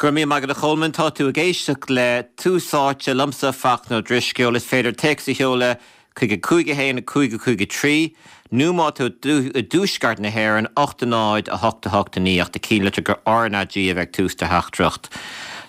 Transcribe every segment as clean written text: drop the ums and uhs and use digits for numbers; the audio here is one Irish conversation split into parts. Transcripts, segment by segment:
Go raibh míle maith agat a Cholmáin. Tá tú ag éisteacht le Tús Áite liomsa, Fachtna Ó Drisceoil. Is féidir téacs a sheoladh chuig 5 1 5 5 3 nó má tá tú i dtuaisceart na hÉireann, 8 0 8 8 9 ach do chinnlitir go RnaG a bheith ag tús do theachtaireacht.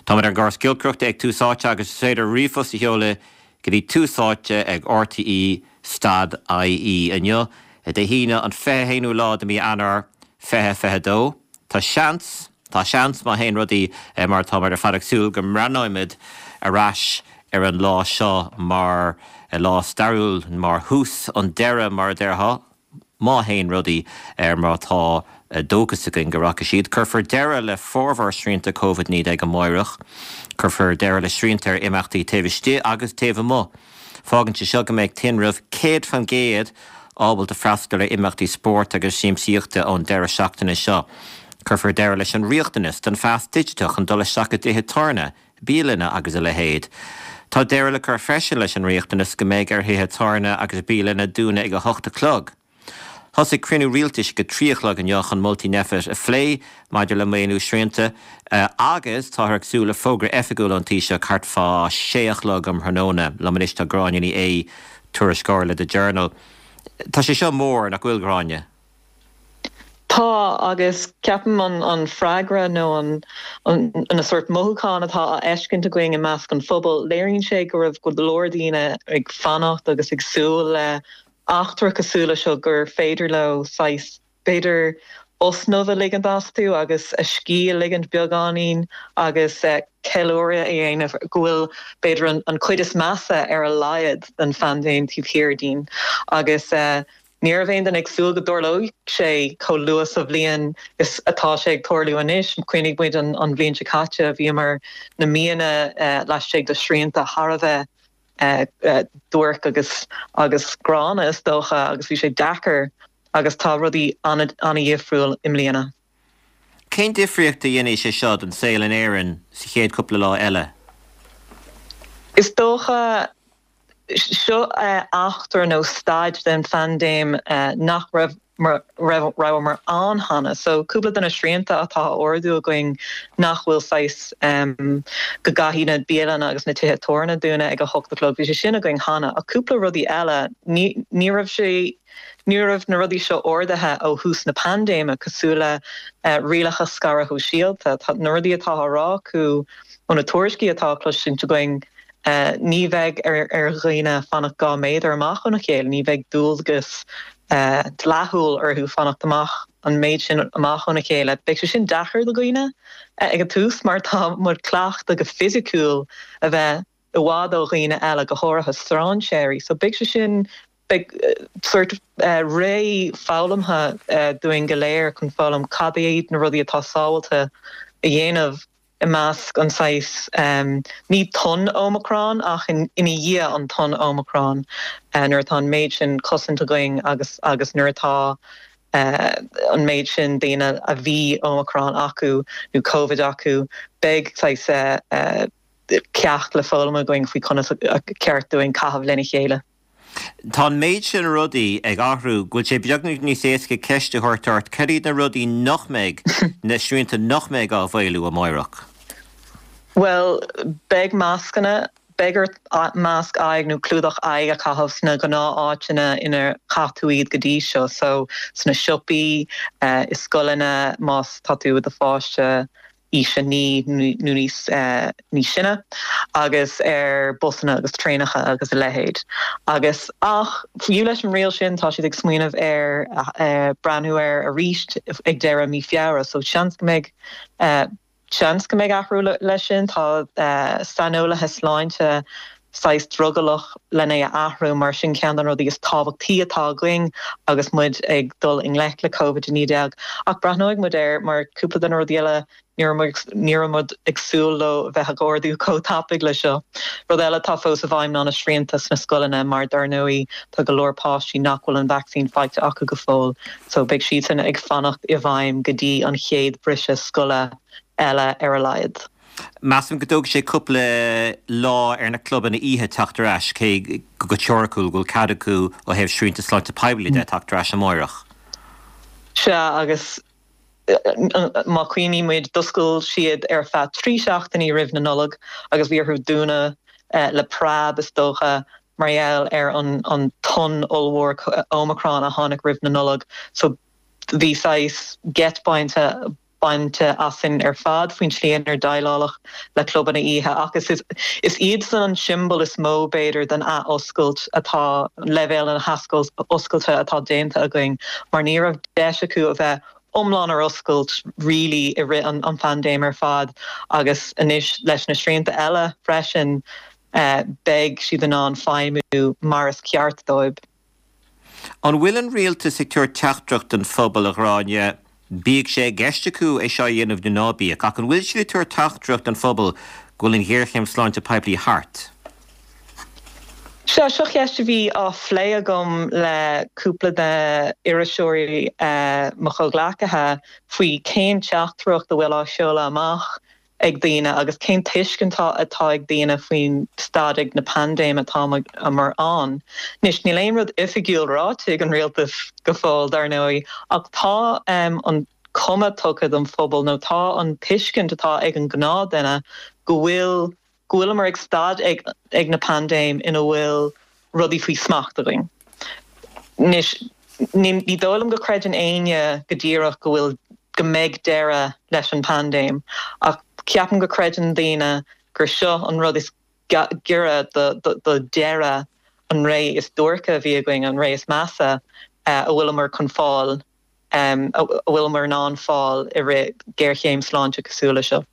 Táimid ar an gcóras giolcaireachta ag Tús Áite agus is féidir ríomhphost a sheoladh go dtí Tús Áite ag RTÉ stad IE inniu, Dé hAoine an 21ú lá de mí Eanáir 2022. Tá seans, tá seans, má théann rudaí mar atáimid ar fad ag súil, go mbreathnóimid ar ais ar an lá seo mar lá stairiúil, mar thús an deireadh, mar a déarfá. Má théann rudaí ar mar atá dóchas againn go rachaidh siad, cuirfear deireadh le formhór srianta Covid-19 amáireach. Cuirfear deireadh le srianta ar imeachtaí taobh istigh agus taobh amuigh. Fágann sé seo go mbeidh tinreamh 100% ábalta freastal ar imeachtaí spóirt agus siamsaíochta ón deireadh seachtaine seo. Cuirfear deireadh leis an riachtanas don phas digiteach chun dul isteach i dtithe tábhairne, bialanna agus a leithéid. Tá deireadh le cur freisin leis an riachtanas go mbeidh ar thithe tábhairne agus bialanna dúnadh ag 8 a chlog. Thosaigh cruinniú rialtais ag 3 a chlog inniu chun moltaí Nphet a phlé maidir le maolú srianta agus táthar ag súil le fógra oifigiúil ón Taoiseach thart fá 6 a chlog um thráthnóna. Liom anois tá Gráinne Ní Aodha, tuairisceoir le The Journal. Tá sé seo mór, nach bhfuil, Gráinne? Tá, agus ceapaim an freagra nó an na sórt mothúchán atá á fheiscint againn i measc an phobail, léiríonn sé go raibh go leor daoine ag fanacht agus ag súil le eachtra cosúil le seo, gur féidir leo saghas, b'fhéidir, osnamh a ligint astu agus a scíth a ligint beagáinín agus ceiliúradh a dhéanamh go bhfuil, b'fhéidir, an chuid is measa ar a laghad den phaindéim taobh thiar dínn. Agus. Ní raibh aon duine ag súil go dtarlódh sé chomh luath sa bhliain is atá sé ag tarlú anois. Cuimhnigh muid an bhliain seo caite, bhíomar na míonna laistigh de shrianta thar a bheith duairc agus agus gránna is dócha agus bhí sé deacair agus tá rudaí an-dhifriúil i mbliana. Cén difríocht a dhéanfaidh sé seo don saol in Éirinn sa chéad chúpla lá eile? Is dócha Seo eachtra nó staid den phaindéim nach raibh rabhamar ann cheana. So cúpla de na srianta atá á ardú againn nach bhfuil saghas go gcaithfidh na bialanna agus na tithe tábhairne dúnadh ag 8 a chlog, bhí sé sin againn cheana. Ach cúpla rudaí eile, ní ní raibh sé ní raibh na rudaí seo ardaithe ó thús na paindéime cosúil le rialacha scaradh shóisialta. Tá na rudaí atá á rá acu ó na tuairiscí atá á cloisint againn, Ní bheidh ar dhaoine fanacht 2 méadar amach óna chéile, ní bheidh dualgas dleathúil orthu fanacht amach an méid sin amach óna chéile. Beidh sé sin deacair do dhaoine ag an tús mar tá muid cleachta go fisiciúil a bheith i bhfad ó dhaoine eile, go háirithe strainséirí. So beidh sé sin, beidh sórt ré foghlamtha dúinn go léir chun foghlaim cad iad na rudaí atá sábháilte a dhéanamh. i measc an saghas, ní tonn Omicron ach ina dhiaidh an tonn Omicron, nuair atá an méid sin cosaint againn agus agus nuair atá an méid sin daoine a bhí Omicron acu nó Covid acu, beidh saghas ceacht le foghlaim againn faoi conas a ceart dúinn caitheamh lena chéile. Tá an méid sin rudaí ag athrú go bhfuil sé beagnach níos éasca ceist a thabhairt ort, cad iad na rudaí nach mbeidh, na srianta nach mbeidh á mhaolú amáireach? Bhuel, beidh mascanna, beidh ort masc aghaidh nó clúdach aghaidh a chaitheamh sna gnáth-áiteanna inar chaith tú iad go dtí seo, so sna siopaí, i scoileanna, más tá tú i do pháiste, aois 9 nó níos sine, agus ar busanna agus traenacha agus a leithéid. Agus, ach, fiú leis an riail sin, tá siad ag smaoineamh ar breathnú air arís ag deireadh mí Feabhra, so seans go mbeidh, seans go mbeidh athrú leis sin. Tá saineolaithe sláinte saghas drogallach len é a athrú mar sin ceann de na rudaí is tábhachtaí atá againn agus muid ag dul i ngleic le Covid-19. Ach breathnóidh muid air mar cúpla de na rudaí eile ní raibh muid ag súil leo a bheith ag ardú chomh tapaidh le seo. Rud eile atá fós i bhfeidhm ná na srianta sna scoileanna mar dar ndóigh tá go leor páistí nach bhfuil an vacsaín faighte acu go fóill so beidh siadsan ag fanacht i bhfeidhm go dtí an chéad briseadh scoile eile ar a laghad. Measaim go dtógfaidh sé cúpla lá ar na clubanna oíche teacht ar ais, cé go teoiriciúil go bhfuil cead acu ó thaobh srianta sláinte poiblí de teacht ar ais amáireach. Sea, agus Má chuimhníonn muid, d'oscail siad ar feadh 3 seachtainí roimh na Nollag agus bhí orthu dúnadh le preab, is dócha, mar gheall ar an tonn ollmhór Omicron a tháinig roimh na Nollag. So bhí saghas geit bainte bainte asainn ar fad faoin tslí inar déileáladh le clubanna oíche ach is is iadsan an tsiombail is mó, b'fhéidir, den athoscailt atá, leibhéal na hathoscailte atá déanta againn mar ní raibh deis acu a bheith iomlán ar oscailt really i rith an phaindéim ar fad agus anois leis na srianta eile freisin beidh siad in ann feidhmiú mar is ceart dóibh. An bhfuil an rialtas ag tabhairt teachtaireacht don phobal, a Ghráinne, bíodh sé i gceist acu é seo a dhéanamh nó ná bíodh, ach an bhfuil siad ag tabhairt teachtaireacht don phobal go bhfuil an ghéarchéim sláinte poiblí thart? Sea, seo ceist a bhí á phlé agam le cúpla de iriseoirí mo chomhghleacaithe faoi cén teachtaireacht a bhfuil á seoladh amach ag daoine agus cén tuiscint atá ag daoine faoin staid ag na paindéime atámar ann. Anois, níl aon rud oifigiúil ráite ag an rialtas go fóill, dar ndóigh, ach tá an cuma tugtha don phobal nó tá an tuiscint atá ag an gnáthduine go bhfuil go bhfuileamar ag staid ag ag na paindéim ina bhfuil rudaí faoi smacht againn. Anois, ní dóigh liom go creideann éinne go díreach go bhfuil, go mbeidh deireadh leis an bpaindéim, ach ceapaim go creideann daoine gur seo an rud is giorra do deireadh an ré is duairce a bhí againn, an ré is measa a bhfuileamar chun fáil. a bhfuileamar in ann fáil i rith géarchéim sláinte cosúil le seo.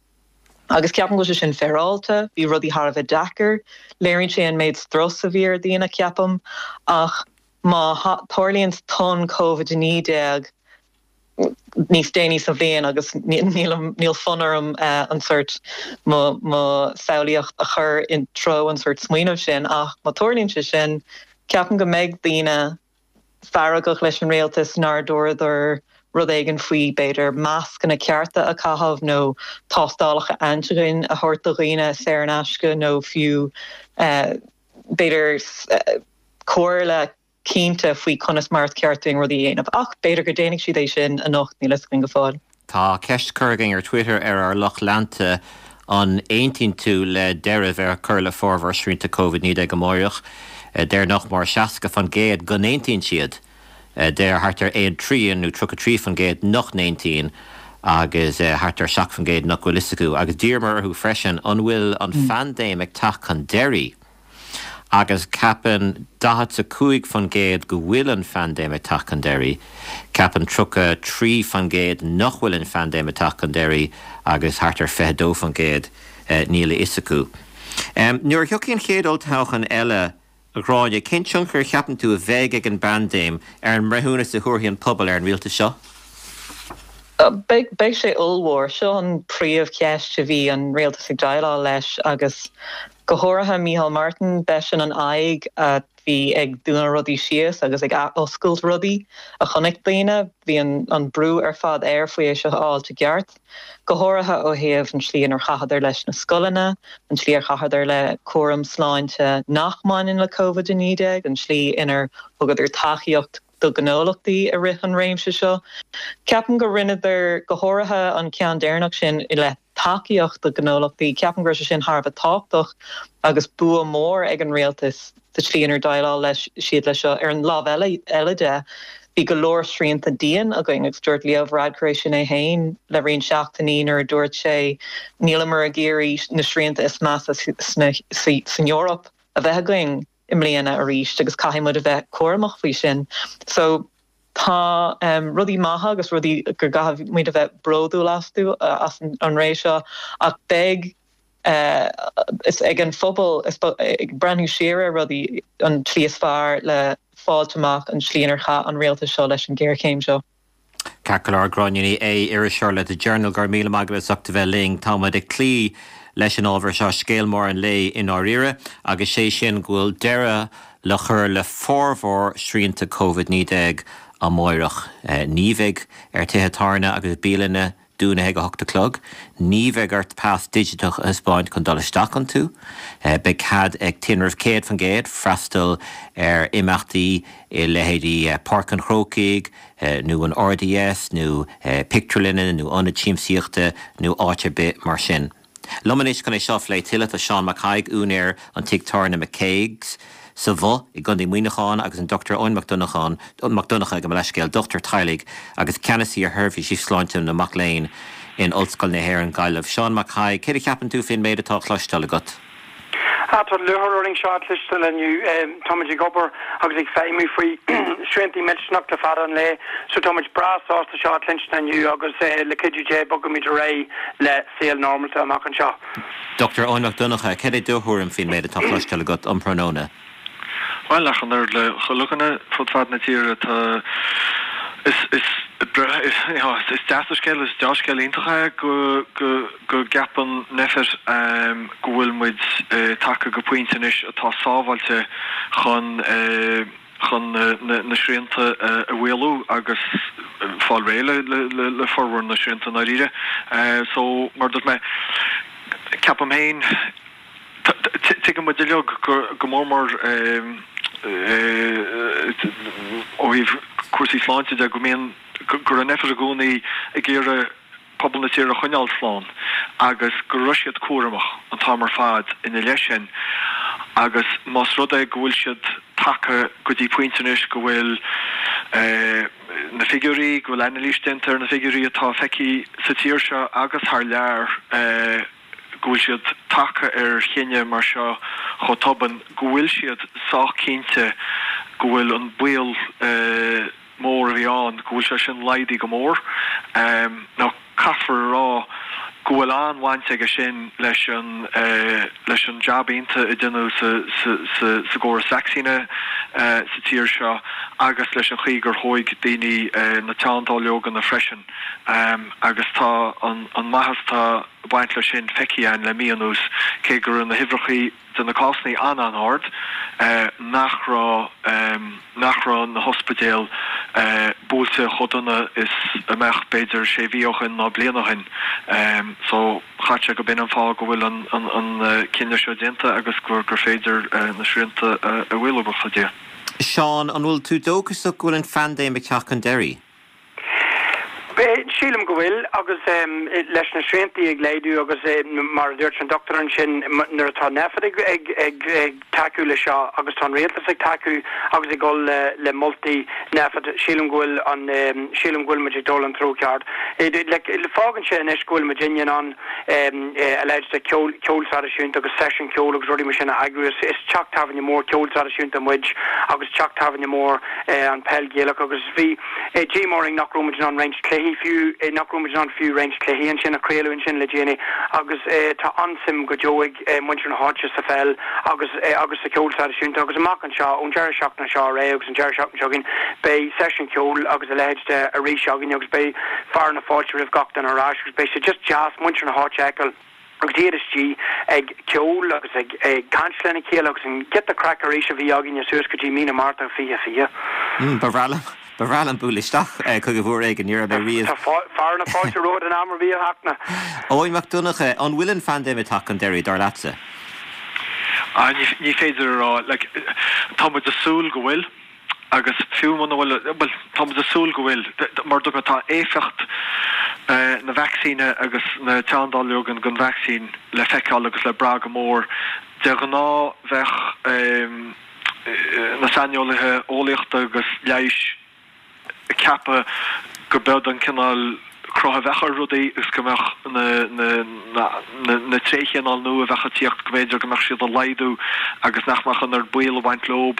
Agus ceapaim go bhfuil sé sin féaráilte, bhí rudaí thar a bheith deacair, léiríonn sé an méid strus a bhí ar dhaoine, ceapaim, ach má tharlaíonn tonn Covid-19 níos déanaí sa bhliain agus níl fonn orm an sórt mo samhlaíocht a chur i dtreo an sórt smaoineamh sin ach má tarlaíonn sé sin, ceapaim go mbeidh daoine feargach leis an rialtas nár dúradar rud éigin faoi, b'fhéidir, mascanna cearta a chaitheamh nó tástálacha antigen a thabhairt do dhaoine saor in aisce nó fiú, b'fhéidir, comhairle cinnte faoi conas mar is ceart dúinn rudaí a dhéanamh. Ach b'fhéidir go déanfaidh siad é sin anocht, níl fhios againn go fóill. Tá ceist curtha againn ar Twitter ar ár lucht leanta, an aontaíonn tú le deireadh a bheith á chur le formhór srianta Covid-19 amáireach? Deir nach mór 60% go n-aontaíonn siad. Deir thart ar aon trian nó 33% nach n-aontaíonn agus thart ar 7% nach bhfuil fhios acu. Agus d'iarramar orthu freisin an bhfuil an phaindéim ag teacht chun deiridh? Agus ceapann 45% go bhfuil an phaindéim ag teacht chun deiridh, ceapann 33% nach bhfuil an phaindéim ag teacht chun deiridh agus thart ar 22% níl a fhios acu. Nuair a thiocfaidh an chéad olltoghchán eile, a Ghráinne, cén tionchar a cheapann tú a bheidh ag an bpaindéim ar an mbreithiúnas a thabharfaidh an pobal ar an rialtas seo? Beidh sé ollmhór. Seo an príomhcheist a bhí an rialtas ag déileáil leis agus Go háirithe Micheál Martin, b'eisean an aghaidh a bhí ag dúnadh rudaí síos agus ag athoscailt rudaí a chonaic daoine. Bhí an brú ar fad air faoi é seo a fháilt i gceart, go háirithe ó thaobh an tslí inar chaitheadar leis na scoileanna, an tslí ar chaitheadar le cúram sláinte nach mbaineann le Covid-19, an tslí inar thugadar tacaíocht do ghnólachtaí i rith an réimse seo. Ceapaim go rinneadar, go háirithe an ceann deireanach sin i leith tacaíocht do ghnólachtaí, ceapaim go raibh sé sin thar a bheith tábhachtach agus bua mór ag an rialtas sa tslí inar dhéileáil leis siad leis seo. Ar an lámh eile de, bhí go leor srianta dian againn agus dúirt Leo Varadkar é sin é féin le roinnt seachtainí nuair a dúirt sé níleamar ag iarraidh na srianta is measa san Eoraip a bheith againn. i mbliana arís agus caithfidh muid a bheith cúramach faoi sin. So tá rudaí maithe agus rudaí go gcaithfidh muid a bheith bródúil astu as an ré seo ach beidh is ag an phobal ag breathnú siar ar rudaí an tslí is fearr le fáilt amach an tslí inar chaith an rialtas seo leis an ghéarchéim seo. Ceart go leor, Gráinne Ní Aodha, iriseoir le The Journal, go raibh míle maith agat as ucht a bheith linn. Tá muid ag cloí leis an ábhar seo, scéal mór an lae i ndáiríre, agus sé sin go bhfuil deireadh le cur le formhór srianta Covid-19 amáireach. Ní bheidh ar tithe tábhairne agus bialanna. dúnadh ag 8 a chlog. Ní bheidh ort pas digiteach a thaispeáint chun dul isteach iontu. Beidh cead ag tinreamh 100% freastal ar imeachtaí i leithéidí Páirc an Chrócaigh nó an RDS nó pictiúrlanna nó ionaid siamsaíochta nó áit ar bith mar sin. Liom anois chun é seo a phlé tuilleadh tá Seán Mac Thaidhg, úinéir an tigh tábhairne McCague's sa Bhoth i gContae Mhuineacháin agus an Dr Eoin Mac Donnacháin, Mac Donncha gabh mo leithscéal, dochtúir teaghlaigh agus ceannasaí ar sheirbhísí sláinte na mac léinn in Ollscoil na hÉireann, Gaillimh. Seán Mac Thaidhg, céard a cheapann tú faoin méid atá á chloisteáil agat? Ah, tá lúcháir orainn seo a chloisteáil inniu. Táimid ag obair agus ag feidhmiú faoi sriantaí millteanach le fada an lá, so táimid breá sásta seo a chluinstin inniu agus le cuidiú Dé bogfaimid ar aghaidh le saol normálta amach anseo. Dr Eoin Mac Donncha, céard é do thuairim faoin méid atá á chloisteáil agat um thráthnóna? Bhuel, ach an oiread le chuile dhuine fud fad na tíre, tá, is, is, is deas an scéal, is deá-scéal iontach é go, go, go gceapann Nphet go bhfuil muid tagtha go pointe anois atá sábháilte chun, chun na srianta a mhaolú agus fáil réidh le, le formhór na srianta i ndáiríre. So, mar a dúirt mé, ceapaim féin, Tuigeann muid uilig go mór mór ó thaobh cúrsaí sláinte de go mbíonn, go raibh Nphet i gcónaí ag iarraidh pobal na tíre a choinneáil slán agus go raibh siad cúramach an t-am ar fad ina leith sin agus más rud é go bhfuil siad tagtha go dtí pointe anois go bhfuil na figiúirí, go bhfuil anailís déanta ar na figiúirí atá feicthe sa tír seo agus thar lear, go bhfuil siad tagtha ar chinneadh mar seo chomh tobann, go bhfuil siad sách cinnte go bhfuil an baol mór a bhí ann, go bhfuil sé sin laghdaithe go mór. Now, caithfear a rá go bhfuil an-bhaint aige sin leis an leis an jab iontach a deineadh sa sa sa gcóras vacsaíne sa tír seo agus leis an chaoi gur thóig daoine na teanndáileoganna freisin agus tá an an maitheas atá ag baint leis sin feicthe againn le mí anuas, cé go raibh na huimhreacha de na cásanna an-an-ard, nach raibh nach raibh na hospidéil buailte chomh dona is a mbeadh b'fhéidir sé mhí ó shin ná bliain ó shin. So chaithfeadh sé go b'in an fáth go bhfuil an an cinneadh seo déanta agus gur gur féidir na srianta a mhaolú, buíochas le Dia. Seán, an bhfuil tú dóchasach go bhfuil an phaindéim ag teacht chun deiridh? Sílim go bhfuil, agus leis na sriantaí ag laghdú agus mar a dúirt an dochtúir ansin, nuair atá Nphet ag tacú le seo agus tá an rialtas ag tacú agus ag dul le moltaí Nphet, sílim go bhfuil an, sílim go bhfuil muid ag dul an treo ceart. Fágann sé anois go bhfuil muid in ann a leithéid de ceol, ceol traidisiúnta agus seisiún ceoil agus rudaí mar sin a eagrú. Is teach tábhairne mór ceol traidisiúnta muid agus teach tábhairne mór an peil Ghaelach agus bhí díomá orainn nach raibh muid in ann roinnt cluichí fiú, nach raibh muid in ann fiú roinnt cluichí ansin a chraoladh ansin le déanaí agus tá an-suim go deo ag muintir na háite sa pheil agus agus sa cheol traidisiúnta agus amach anseo, ón deireadh seachtaine seo ar aghaidh agus an deireadh seachtaine seo chugainn, beidh seisiún ceoil agus a leithéid de arís againn agus beidh fearadh na fáilte roimh gach duine ar ais agus beidh sé just deas muintir na háite a fheiceáil. agus iad istigh ag ceol agus ag caint lena chéile agus an giota craic arís a bhí againne suas go dtí mí na Márta 2020. Ba bhreá liom, ba bhreá liom bualadh isteach chugaibh uair éigin, ní raibh mé riamh. Tá fearadh na fáilte romhat in am ar bith a Fhachtna. Eoin Mac Donncha, an bhfuil an phaindéim ag teacht chun deiridh, dar leatsa? Ah, ní féidir a rá. Like, tá muid ag súil go bhfuil. Agus fiú muna bhfuil, bhuel, tá muid ag súil go bhfuil, mar a dúirt mé, tá éifeacht na vacsaíne agus na teanndáileoga den vacsaín le feiceáil agus le brath go mór. De ghnáth bheadh na saineolaithe eolaíochta agus leighis ag ceapadh go b'eod an cineál cruth a bheadh ar rudaí agus go mbeadh na tréithchineáil nua a bheadh ag tíocht, go mb'fhéidir go mbeadh siad ag laghdú agus nach mbeadh an oiread baol ag baint leob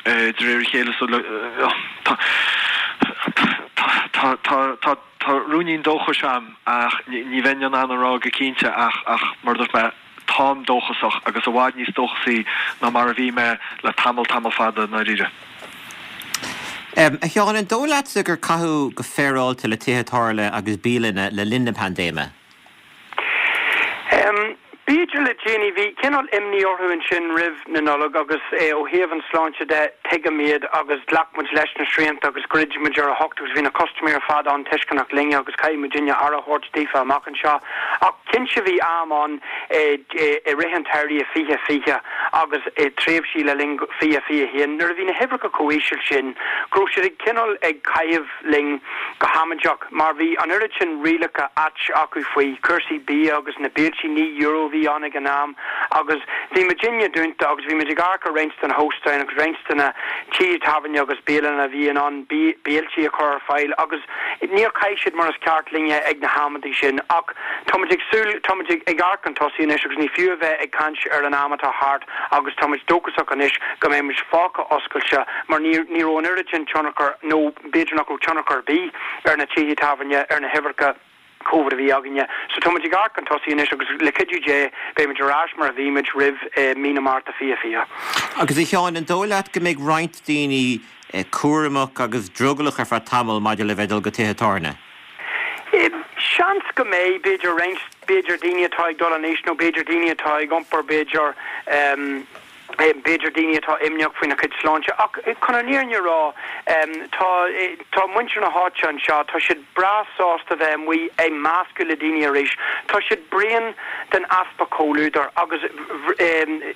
de réir a chéile. So tá tá tá ruainnín dóchais a'm ach ní bheinn in ann a rá go cinnte ach ach mar a dúirt mé, Táim dóchasach, agus i bhfad níos dóchasaí ná mar a bhí mé le tamall, tamall fada, i ndáiríre. A Sheáin, an dóigh leatsa gur caitheadh go féaráilte le tithe tábhairne agus bialanna le linn na paindéime? B'fhéidir le déanaí, bhí cineál imní orthu ansin roimh na Nollag agus ó thaobh an sláinte de, tuigim iad agus ghlac muid leis na srianta agus dhruid muid ar a hocht agus bhí na custaiméirí ar fad an-tuisceanach linne agus caithfidh muidinne aire a thabhairt daofa amach anseo. Ach cinnte bhí am ann i rith an tsamhraidh i 2020 agus i tréimhsí le linn 2021 nuair a bhí na huimhreacha chomh íseal sin go raibh siad ag cineál ag caitheamh linn go hamaideach mar bhí an oiread sin rialacha ait acu faoi chúrsaí bia agus na béiltí, €9 a bhí ann ag an am agus bhí muidinne dúnta agus bhí muid ag amharc ar roinnt de na hóstáin agus roinnt de na tithe tábhairne agus bialanna a bhí in ann béiltí a chur ar fáil agus níor chaith siad mar is ceart linne ag na hamantaí sin ach tá muid ag súil, tá muid ag amharc chun tosaigh anois agus ní fiú a bheith ag caint ar an am atá thart agus tá muid dóchasach anois go mbeidh muid fágtha oscailte mar ní ní raibh an oiread sin tionchar nó b'fhéidir nach raibh tionchar ar bith ar na tithe tábhairne, ar na huimhreacha Covid a bhí againne. So tá muid ag amharc chun tosaigh anois agus le cuidiú Dé beidh muid ar ais mar a bhí muid roimh mí na Márta 2020. Agus a Sheáin, an dóigh leat go mbeidh roinnt daoine cúramach agus drogallach ar feadh tamaill maidir le bheith ag dul go tithe tábhairne? Seans go mbeidh, b'fhéidir roinnt, b'fhéidir daoine atá ag dul in aois nó b'fhéidir daoine atá ag iompar b'fhéidir, b'fhéidir daoine atá imníoch faoina chuid sláinte. Ach chun an fhírinne a rá, tá, tá muintir na háite anseo, tá siad breá sásta bheith amuigh ag meascadh le daoine arís. Tá siad bréan den easpa comhluadair agus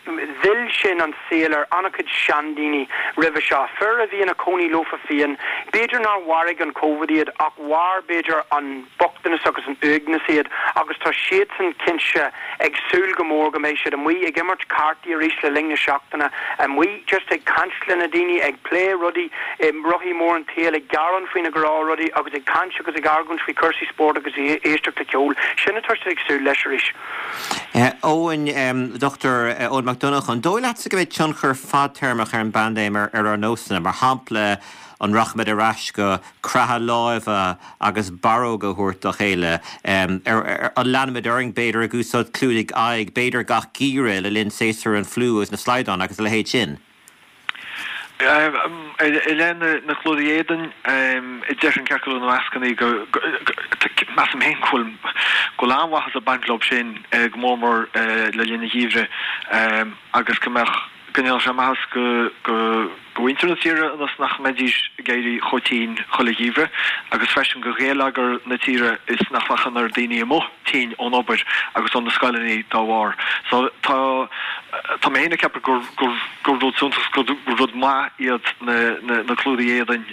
mhill sin an saol ar an-chuid seandaoine roimhe seo, fir a bhí ina cónaí leofa féin. B'fhéidir nár mharaigh an Covid iad ach mharaigh b'fhéidir an bochtanas agus an uaigneas iad agus tá siadsan cinnte ag súil go mór go mbeidh siad amuigh ag imirt cártaí arís le linn na seachtaine, amuigh just ag caint le na daoine, ag plé rudaí, rothaí mór an tsaoil, ag gearán faoi na gnáthrudaí agus ag caint agus ag argóint faoi chúrsaí spóirt agus ag éisteacht le ceol. Sin atá siad ag súil leis arís. Eoin, Dr Eoin Mac Donncha, an dóigh leatsa go mbeidh tionchar fadtéarmach ar an bpaindéim ar ár nósanna? Mar shampla, an rachaimid ar ais go croitheadh láimhe agus barróga a thabhairt dá chéile? An leanfaimid orainn, b'fhéidir, ag úsáid clúdaigh aghaidh, b'fhéidir gach geimhreadh le linn séasúr an fliú agus na slaghdán agus a leithéid sin? I leith na clúdaigh éadain, déarfainn ceart go leor na mascannaí go, measaim féin go bhfuil an-mhaitheas ag baint leo sin, go mór mór le linn an gheimhridh agus go mbeadh, go ndéanfadh sé maitheas go mhuintir na tíre ionas nach mbeidís ag éirí chomh tinn chuile gheimhreadh agus freisin go gheilleagar na tíre is nach mbeadh an oiread daoine amuigh tinn ón obair agus ó na scoileanna dá bharr. So tá tá mé féin ag ceapadh gur gur gur rud suntasach gur rud maith iad na na na clúdaigh éadain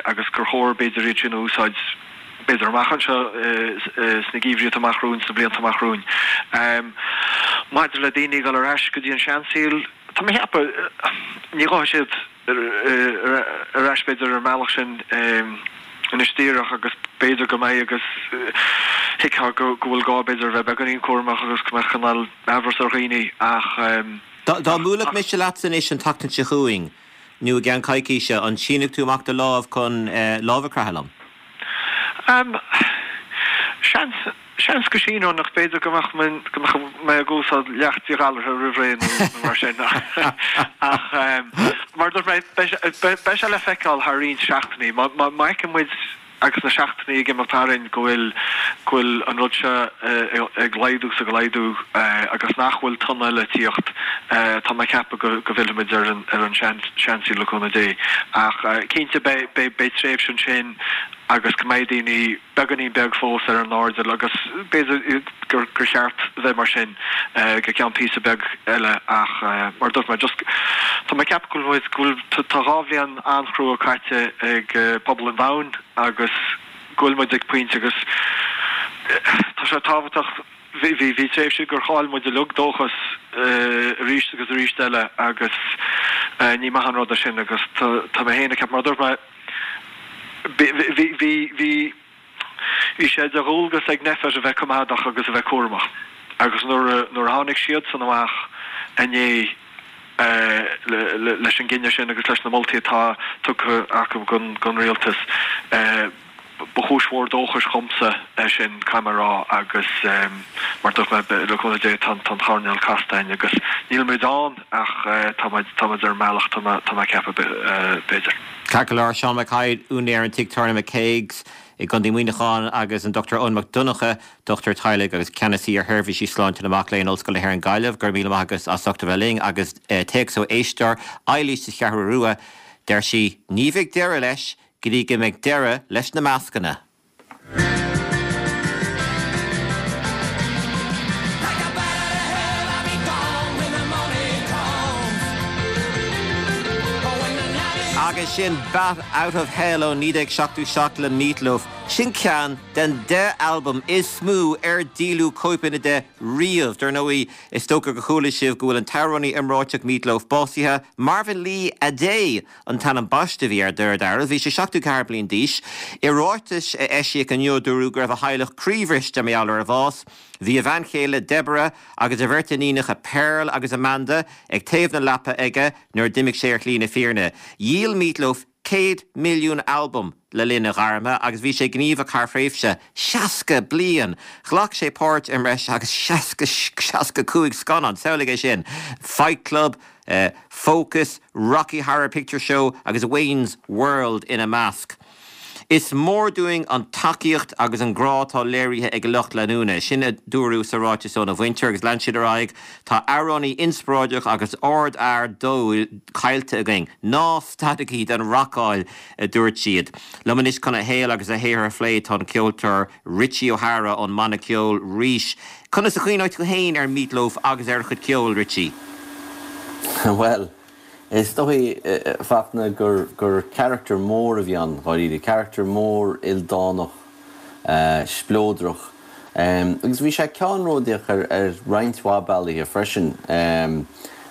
agus gur chóir b'fhéidir iad sin a úsáid b'fhéidir amach anseo sna geimhrí atá amach romhainn, sna blianta amach romhainn. Maidir le daoine ag dul ar ais go dtí an seansaol, tá mé ag ceapadh, ní ghabhfaidh siad ar ais b'fhéidir ar an mbealach sin anois díreach agus b'fhéidir go mbeidh agus thuigfeá go bhfuil gá b'fhéidir a bheith beagáinín cúramach agus go mbeadh cineál amhras ar dhaoine ach. Dá mbuailfeadh mise leatsa anois an tseachtain seo chugainn, nó i gceann coicíse, an sínfeadh tú amach do lámh chun lámh a chroitheadh liom? Seans, seans go síneoinn ach b'fhéidir go mbeadh mé, go mbeadh mé ag úsáid leacht díghalraithe roimh ré nó mar sin ach mar a dúirt mé, beidh sé le feiceáil thar roinnt seachtainí. Má fheiceann muid Agus na seachtainí ag imeacht tharainn go bhfuil, go bhfuil an rud seo ag laghdú 's ag laghdú agus nach bhfuil tonn eile ag tíocht, tá mé ag ceapadh go, go bhfillfimid ar an, ar an sean, seansaol le cúnamh Dé. Ach cinnte beidh, beidh, beidh tréimhse ansin agus go mbeidh daoine beagáinín beag fós ar an airdeall agus b'fhéidir gur, gur cheart a bheith mar sin go ceann píosa beag eile ach mar a dúirt mé just tá mé ag ceapadh go bhfuil muid, go bhfuil, tá 2 bhliain an-chrua caite ag pobal an domhain agus go bhfuil muid ag pointe agus tá sé tábhachtach, bhí, bhí, bhí tréimhse gur chaill muid uilig dóchas arís agus arís eile agus ní maith an rud é sin agus tá, tá mé féin ag ceapadh, mar a dúirt mé, bhí, bhí, bhí, bhí. Bhí sé de dhualgas ag Nphet a bheith coimeádach agus a bheith cúramach agus nuair a nuair a tháinig siadsan amach inné leis an gcinneadh sin agus leis na moltaí atá tugtha acu don rialtas, ba chúis mhór dóchais dhomsa é sin, caithfidh mé a rá, agus mar a dúirt mé, le cúnamh Dé, tá an choirnéal casta againn agus níl muid ann ach tá muid tá muid ar an mbealach, tá mé ag ceapadh, b'fhéidir. Ceart go leor, Seán Mac Thaidhg, úinéir an tigh tábhairne McCague's. i gContae Mhuineacháin agus an Dr Eoin Mac Donncha, dochtúir teaghlaigh agus ceannasaí ar Sheirbhísí Sláinte na Mac Léinn, Ollscoil na hÉireann Gaillimh. Go raibh míle maith agat as ucht a bheith linn agus téacs ó éisteoir, Eilís sa Cheathrú Rua, deir sí, Ní bheidh deireadh leis go dtí go mbeidh deireadh leis na mascanna. Agus sin Bat Out of Hell ó 1977 le Meat Loaf. Sin ceann den 10 albam is mó ar díoladh cóipeanna de riamh. Dar ndóigh, is dócha gur chuala sibh go bhfuil an t-amhránaí iomráiteach Meat Loaf básaithe, Marvin Lee Aday an t-ainm baiste a bhí air, de réir dealraimh. Bhí sé 74 bliain d'aois. I ráiteas a eisíodh inniu, dúradh go raibh a theaghlach croíbhriste mar gheall ar a bhás. Bhí a bhean chéile, Deborah, agus a bheirt iníonacha, Pearl agus Amanda, ag taobh na leapa aige nuair a d'imigh sé ar shlí na fírinne. Dhíol Meat Loaf 100 milliún albam le linn a ghairme agus bhí sé gníomhach thar thréimhse 60 bliain. Ghlac sé páirt i mbreis agus 60, 65 scannán, samhlaigh é sin, Fight Club, Focus, Rocky Horror Picture Show agus Wayne's World ina measc. Is mór dúinn an tacaíocht agus an grá atá léirithe ag a lucht leanúna, sin a dúradh sa ráiteas óna mhuintir agus lean siad ar aghaidh, Tá amhránaí inspioráideach agus ardfhear dóigh caillte againn. Ná stadaigí den racáil, a dúirt siad. Liom anois chun a shaol agus a shaothar a phlé tá an ceoltóir Richie O'Hara ón mbanna ceoil Rís. Conas a chuimhneoidh tú féin ar Meat Loaf agus ar a chuid ceoil, Richie? Bhuel, Is dóigh, a Fachtna, gur gur charachtar mór a bhí ann, dháiríre. Carachtar mór ildánach, spleodrach. Agus bhí sé ceannródaíoch ar ar roinnt mhaith bealaithe freisin.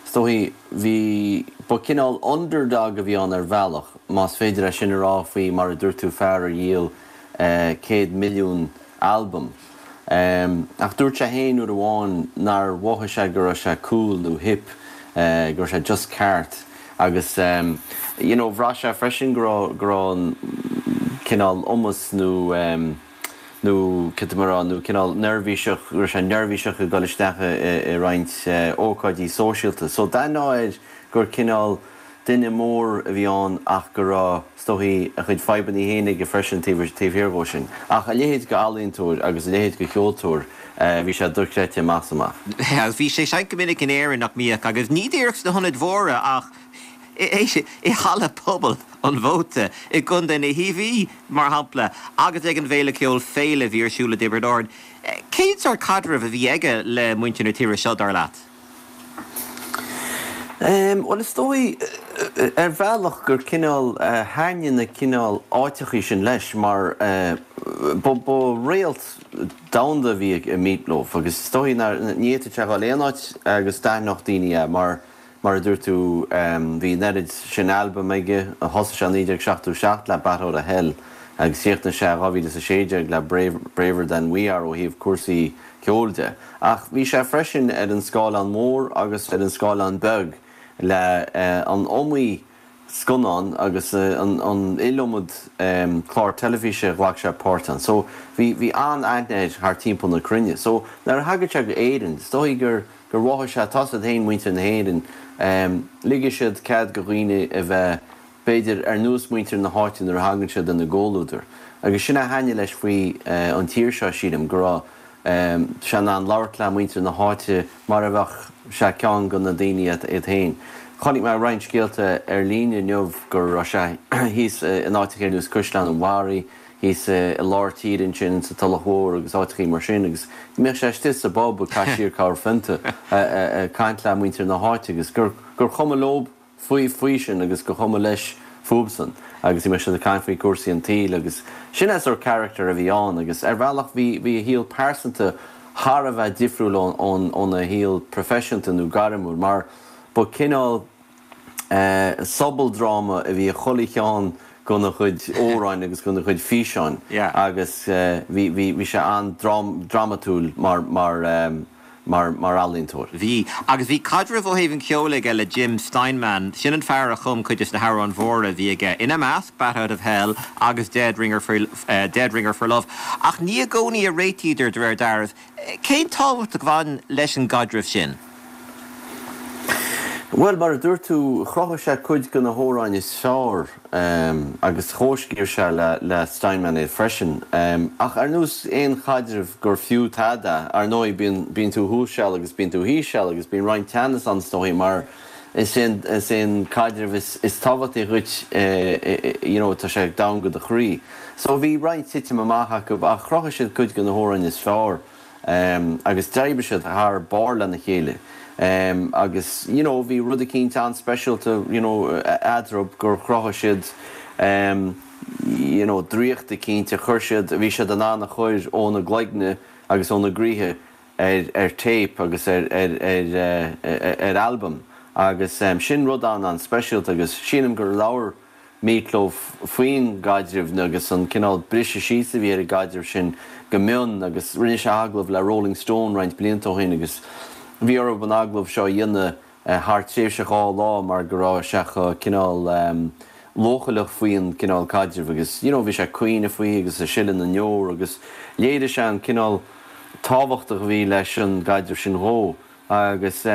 Is dóigh, bhí, ba cineál underdog a bhí ann ar bhealach, más féidir é sin a rá faoi, mar a dúirt tú, fear a dhíol 100 milliún albam. Ach dúirt sé féin uair amháin nár mhothaigh sé go raibh sé cool nó hip, go raibh sé just ceart. Agus you know bhraith sé freisin go raibh, go raibh an cineál iomas nó nó cad tá mé a rá, nó cineál neirbhíseach, go raibh sé neirbhíseach ag dul isteach i roinnt ócáidí sóisialta. So d'aithneofá air gur cineál duine mór a bhí ann ach go raibh, is dóichí, a chuid fadhbanna féin aige freisin taobh thiar dhó sin. Ach a leithéid de ealaíontóir agus a leithéid de cheoltóir, bhí sé dochreidte amach is amach. Agus bhí sé ag seinnt go minic in Éirinn, nach mbíodh? Agus ní díreach sna hionaid mhóra ach i Halla Pobail an Mhóta i gContae na hIarmhí, mar shampla, agus ag an bhféile ceoil Féile a bhí ar siúl i dTiobraid Árann. Cén sórt caidrimh a bhí aige le muintir na tíre seo, dar leat? Bhuel, is dóigh, ar bhealach, gur cineál thaitnigh na cineál áiteachaí sin leis mar ba réalt domhanda a bhí i Meat Loaf agus is dóigh nár, ní fhéadfadh sé a dhul aon áit agus d'aithneodh daoine é mar, mar a dúirt tú, bhí an oiread sin albam aige, thosaigh sé i 1977 le Bat Out of Hell agus chríochnaigh sé i 2016 le Braver Than We Are ó thaobh cúrsaí ceoil de. Ach bhí sé freisin ar an scáileán mór agus ar an scáileán beag le an iomaí scannán agus an iliomad clár teilifíse a ghlac sé páirt ann. So bhí bhí an-aithne air thar timpeall na cruinne. So nuair a thagadh sé go Éirinn, is dóigh gur gur mhothaigh sé, tá's agat féin muintir na hÉireann, ligfidh siad cead go dhaoine a bheith b'fhéidir, ar nós muintir na háite nuair a thagann siad ina gcomhluadar. Agus sin a thaitnigh leis faoi an tír seo, sílim, go raibh sé in ann labhairt le muintir na háite mar a bheadh sé ceann de na daoine iad féin. Chonaic mé roinnt scéalta ar líne inniu go raibh sé thíos in áiteacha ar nós Caisleán an Bharraigh, thíos i lár tíre ansin sa Tulach Mhór agus áiteachaí mar sin agus go mbíodh sé istigh sa bpub ag caitheamh siar corrphionta ag caint le muintir na háite agus gur chuma leob faoi faoi sin agus gur chuma leis fúbsan agus bhí siad ag caint faoi cúrsaí an tsaoil agus sin é sort character a bhí ann agus ar bhealach bhí bhí a shaol pearsanta thar a bheith difriúil ón óna shaol proifisiúnta nó gairmiúil mar ba cineál eh sobaldráma a bhí i chuile cheann gona chuid amhráin agus gona chuid físeáin agus eh bhí bhí bhí sé an-dramatúil mar mar eh mar mar ealaíontóir. Bhí. Agus bhí caidreamh ó thaobh an cheoil aige le Jim Steinman. Sin an fear a chum cuid des na hamhráin mhóra a bhí aige, ina measc, Bat Out of Hell agus Dead Ringer for Dead Ringer for Love. Ach ní i gcónaí a réitíodar, de réir dealraimh. Cén tábhacht a bhain leis an gcaidreamh sin? Bhuel, mar a dúirt tú, chruthaigh sé cuid de na hamhráin is fearr agus chomhscríobh sé le Steinman iad freisin. Ach ar nós aon chaidreamh gur fiú tada, ar ndóigh, bíonn, bíonn tú thuas seal agus bíonn tú thíos seal agus bíonn roinnt teannas ann is dóigh mar is é an, is é an caidreamh is, is tábhachtaí dhuit, you know, tá sé domhain go do chroí. So bhí roinnt titim amach acu ach chruthaigh siad cuid de na hamhráin is fearr. agus d'oibrigh siad thar barr lena chéile agus you know bhí rud eicínt an-speisialta you know eadarthu gur chruthaigh siad you know draíocht eicínt a chuir siad, a bhí siad in ann a chur óna gcloigne agus óna gcroíthe ar ar téip agus ar ar ar ar albam agus sin rud an-an-speisialta agus sílim gur labhair Meat Loaf faoin gcaidreamh agus an cineál briseadh síos a bhí ar an gcaidreamh sin go mion agus rinne sé agallamh le Rolling Stone roinnt blianta ó shin agus bhí orthu an agallamh seo a dhéanamh thar tréimhse 2 lá mar go raibh sé chomh cineál leochaileach faoin cineál caidrimh agus you know bhí sé ag caoineadh faoi agus ag sileadh na ndeor agus léirigh sé an cineál tábhachtach a bhí leis an gcaidreamh sin dhó. Agus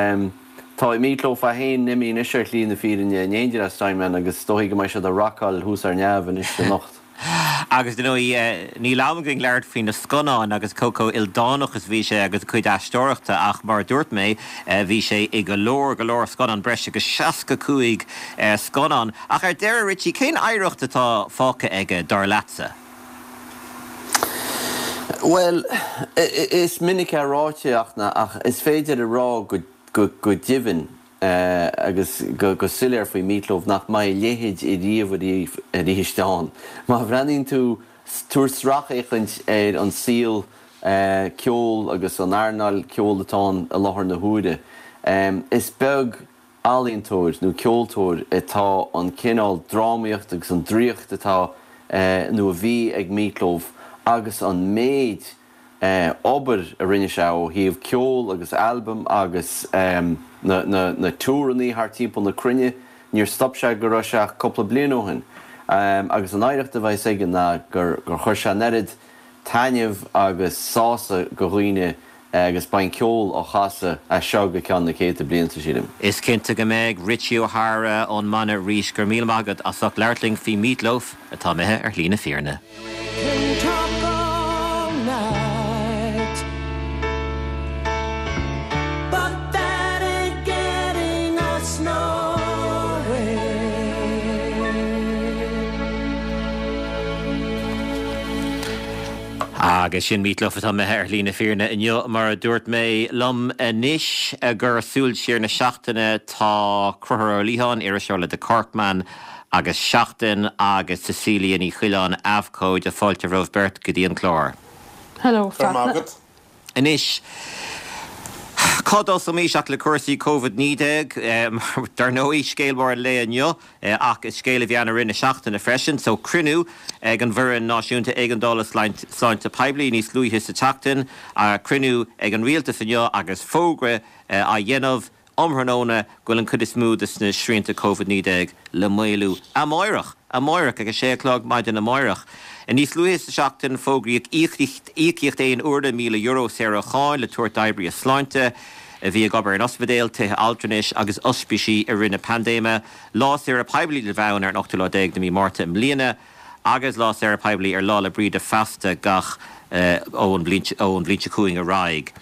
tá Meat Loaf é féin imithe anois ar shlí na fírinne in éindí le Steinman agus is dóichí go mbeidh siad ag rocáil thuas ar neamh anois anocht. Agus dar ndóigh, níl am againn labhairt faoi na scannáin agus cé chomh ildánach is a bhí sé agus a chuid aisteoireachta ach mar a dúirt mé, bhí sé i go leor, go leor scannán, breis agus 65 scannán. Ach ar deireadh, Richie, cén oidhreacht atá fágtha aige, dar leatsa? Bhuel, is minic é ráite ach is féidir a rá go deimhin agus go soiléir faoi Meat Loaf nach mbeidh a leithéid ariamh arís ann. Má bhreathnaíonn tú, tabhair sracfhéachaint ar an saol ceoil agus an earnáil ceoil atá ann i láthair na huaire, is beag ealaíontóir nó ceoltóir atá an cineál drámaíocht agus an draíocht atá nó a bhí ag Meat Loaf agus an méid obair a rinne sé ó thaobh ceol agus albaim agus na na tour-annaí thar timpeall na cruinne, níor stop sé go raibh sé ach cúpla bliain ó shin. Agus an oidhreacht a bheas aige ná gur chuir sé an oiread taitneamh agus sásamh go dhaoine agus beidh an ceol á chasadh as seo go ceann na céadta blianta, sílim. Is cinnte go mbeidh. Richie O'Hara ón mbanna Rís, go raibh míle maith agat as ucht labhairt linn faoi Meat Loaf atá imithe ar shlí na fírinne. Agus sin Meat Loaf atá imithe ar shlí na fírinne inniu, mar a dúirt mé. Liom anois i gcomhair Súil Siar na Seachtaine tá Conchúr Ó Liatháin, iriseoir le The Corkman agus Seachtain, agus Cecilia Ní Choileáin, abhcóide. Fáilte romhaibh beirt go dtí an clár. Hello, Fachtna. Anois, cá dtosóimis ach le cúrsaí Covid-19? Dar ndóigh, scéal mór an lae inniu, ach is scéal a bhí ann i rith na seachtaine freisin. So, cruinniú ag an bhFoireann Náisiúnta Éigeandála Sláinte Poiblí níos luaithe sa tseachtain, cruinniú ag an Rialtas inniu agus fógra á dhéanamh um thráthnóna go bhfuil an chuid is mó de na srianta Covid-19 le maolú amáireach, amáireach, ag a sé a chlog maidin amáireach. Níos luaithe sa seachtain, fógraíodh íocaíocht aon uaire €1,000 saor ó cháin le tabhairt d'oibrithe sláinte a bhí ag obair in ospidéil, tithe altranais agus ospísí i rith na paindéime. Lá saoire poiblí le bheith ann ar an ochtú lá déag de mhí Márta i mbliana agus lá saoire poiblí ar Lá 'le Bríde feasta gach ón bhliain seo chugainn ar aghaidh.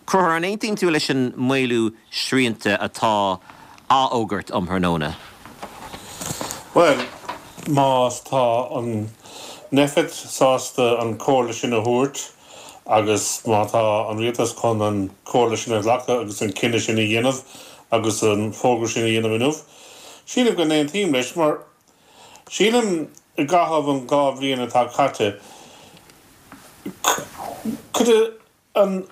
Conchúr, an aontaíonn tú leis an maolú srianta atá á fhógairt um thráthnóna? Bhuel, má tá an Nphet sásta an comhairle sin a thabhairt agus má tá an rialtas chun an comhairle sin a ghlacadh agus an cinneadh sin a dhéanamh agus an fógra sin a dhéanamh inniu, sílim go n-aontaím leis mar Sílim, i gcaitheamh an 2 bhliain atá caite, cuid an,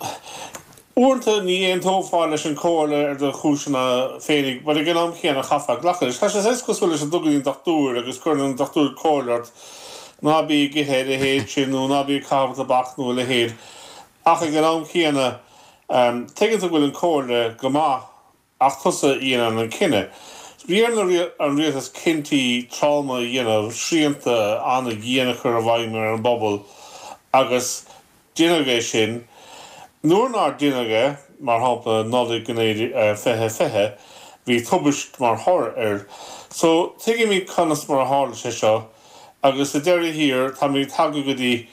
uaireanta ní aontófá leis an chomhairle ar do chúiseanna féinig, but ag an am chéanna chaithfeá glacadh leis. Tá sé saghas cosúil leis an dul go dtí an dochtúir agus cuireann an dochtúir comhairle ort ná bí ag ithe a leithéid sin nó ná bí ag caitheamh tobac nó a leithéid ach ag an am chéanna tuigeann tú go bhfuil an comhairle go maith Ach tusa a dhéanann an cinneadh. Bhí ar an rialtas cinntí troma a dhéanamh, srianta an-dhian a chur i bhfeidhm ar an bpobal agus deineadh é sin. Nuair nár deineadh é, mar shampla Nollaig 2020, bhí tubaist mar thoradh air. So, tuigimid conas mar a tharla sé seo agus sa deireadh thiar táimid tagtha go dtí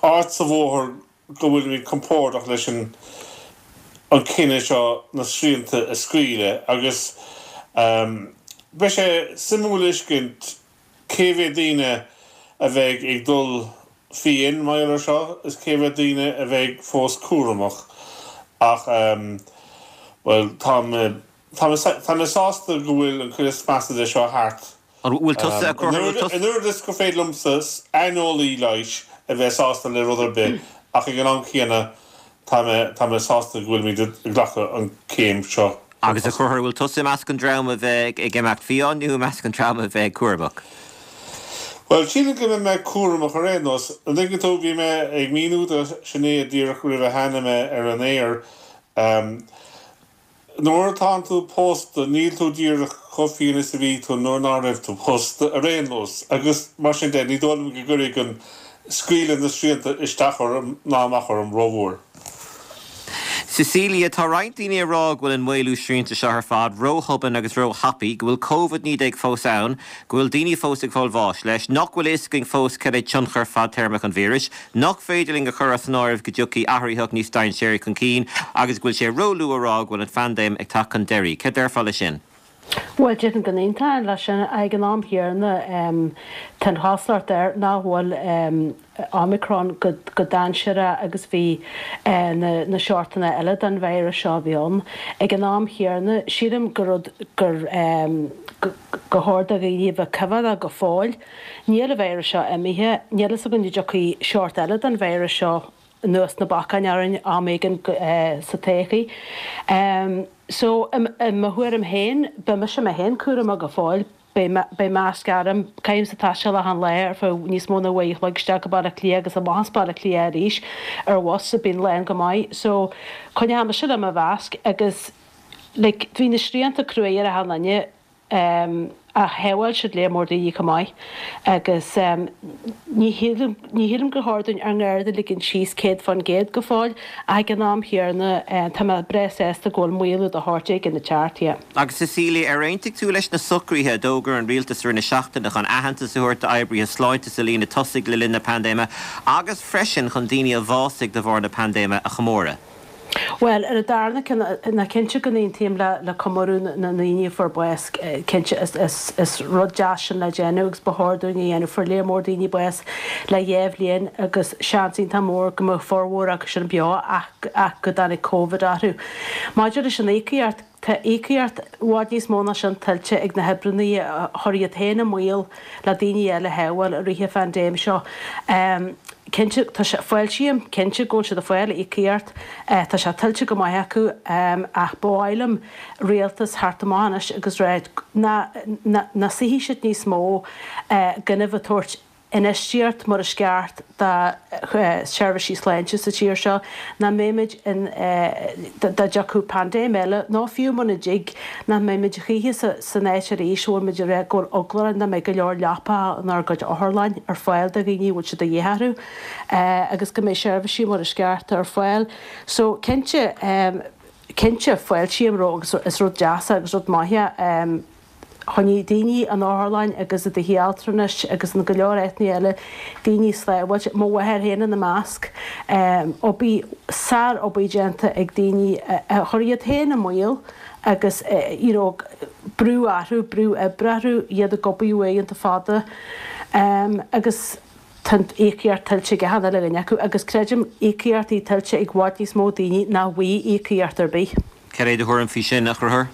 áit sa bhóthar go bhfuilimid compordach leis an an cinneadh seo na srianta a scaoileadh agus beidh sé suimiúil a fheiscint cé mhéad daoine a bheidh ag dul fiáin mar gheall ar seo is cé mhéad daoine a bheidh fós cúramach ach bhuel tá mé tá mé tá mé sásta go bhfuil an chuid is measa de seo thart. An bhfuil tusa a Chonchúir? An oiread is gur féidir liomsa, aineolaí leighis, a bheith sásta le rud ar bith ach ag an am céanna tá mé tá mé sásta go bhfuilimid ag glacadh an céim seo chun Agus a tosaigh. Chonchúir, an bhfuil tusa i measc an dream a bheidh ag imeacht fiáin nó i measc an dream a bheidh cúramach? Bhuel, sílim go mbeidh mé cúramach ar aon nós. An dtuigeann tú, bhí mé ag míniú do Sinéad díreach roimh a tháinig mé ar an aer, Nuair atánn tú pósta níl tú díreach chomh fiáin is a bhí tú nuair ná raibh tú pósta, ar aon nós, agus mar sin de, ní dóigh liom go gcuirfidh an scaoileadh na srianta isteach orm ná amach orm rómhór. Cecilia, Tá roinnt daoine ag rá go bhfuil an maolú srianta seo ar fad róthobann agus róthapaidh, go bhfuil Covid-19 fós ann, go bhfuil daoine fós ag fáil bháis leis, nach bhfuil a fhios againn fós cad é tionchar fadtéarmach an víris, nach féidir linn a chur as an áireamh go dtiocfaidh athraitheach níos dainséaraí chun cinn agus go bhfuil sé róluath a rá go bhfuil an phaindéim ag teacht chun deiridh. Cad déarfá leis sin? Bhuel, déarfainn go n-aontóinn leis sin. Ag an am chéanna, tá an chosúlacht air nach bhfuil Omicron chomh dainséarach agus bhí na seortanna eile den víreas seo a bhí ann. Ag an am chéanna, sílim gur rud gur gur chóir do dhaoine a bheith coimheádach go fóill. Níl an víreas seo imithe. Níl fhios againn an dtiocfaidh seort eile den víreas seo anuas na bacáin orainn am éigin sa todhchaí. So, i mo thuairim féin, beidh mise mé féin cúramach go fóill. Beidh masc orm. Caithimse taisteal achan lá ar feadh níos mó ná uair a chloig isteach go Baile Átha Cliath agus amach as Baile Átha Cliath arís ar bhus a bíonn lán go maith. So, coinneoidh mise le mo mhasc agus like bhí na srianta cruaidh ar achan duine. Ach shábháil siad léar mór daoine chomh maith agus ní shílim, ní shílim gur chóir dúinn ár ngarda a ligean síos 100% go fóill ach ag an am chéanna tá mé breá sásta go bhfuil maolú de shórt éigin ag teacht, yeah. Agus Cecilia, ar aontaigh tú leis na socruithe a d'fhógair an rialtas i rith na seachtaine chun aitheantas a thabhairt d'oibrithe sláinte sa líne tosaigh le linn na paindéime agus freisin chun daoine a bhásaigh de bharr na paindéime a chomóradh? Bhuel, ar an darna ceann, ná cinnte go n-aontaím le comóradh na ndaoine a fuair bás, cinnte is rud deas sin le déanamh agus ba chóir dúinn a dhéanamh. Fuair léar mór daoine bás le dhá bhliain agus seans iontach mór go mbeadh formhór acu sin beo ach go dtáinig Covid orthu. Maidir leis an íocaíocht, Tá íocaíocht i bhfad níos mó ná sin tuillte ag na hoibreanna a chuir iad féin i mbaol le daoine eile a shábháil i rith an phaindéim seo. Cinnte, tá sé, fáiltím, cinnte go bhfuil siad ag fáil íocaíocht, tá sé tuillte go maith acu ach ba mhaith liom rialtas theacht amach anois agus rá nach suífidh siad níos mó gan a bheith ag tabhairt infheistíocht mar is ceart do sheirbhísí sláinte sa tír seo, nach mbeimid in, dá dtiocfadh paindéim eile, nó fiú muna dtig, nach mbeimid choíche san áit arís a bhfuil muid ag rá go bhfuil eagla orainn nach mbeidh go leor leapacha inár gcuid otharlann ar fáil do dhaoine a bhfuil sé de dhíth orthu agus go mbeidh seirbhísí mar is ceart ar fáil. So, cinnte, cinnte, fáiltím roimh agus is rud deas é agus rud maith é. Choinnigh daoine in otharlann agus i dtithe altranais agus in go leor áiteanna eile daoine sábháilte, mo mháthair féin ina measc. Obair, sár-obair déanta ag daoine a chuir iad féin i mbaol agus you know brú orthu, brú oibre orthu, iad ag obair uaireanta fada agus tá an íocaíocht tuillte ag achan uile dhuine acu agus creidim íocaíochtaí tuillte ag i bhfad níos mó daoine ná bhfaighidh íocaíocht ar bith. Cad é do thuairim faoi sin, a Chonchúir?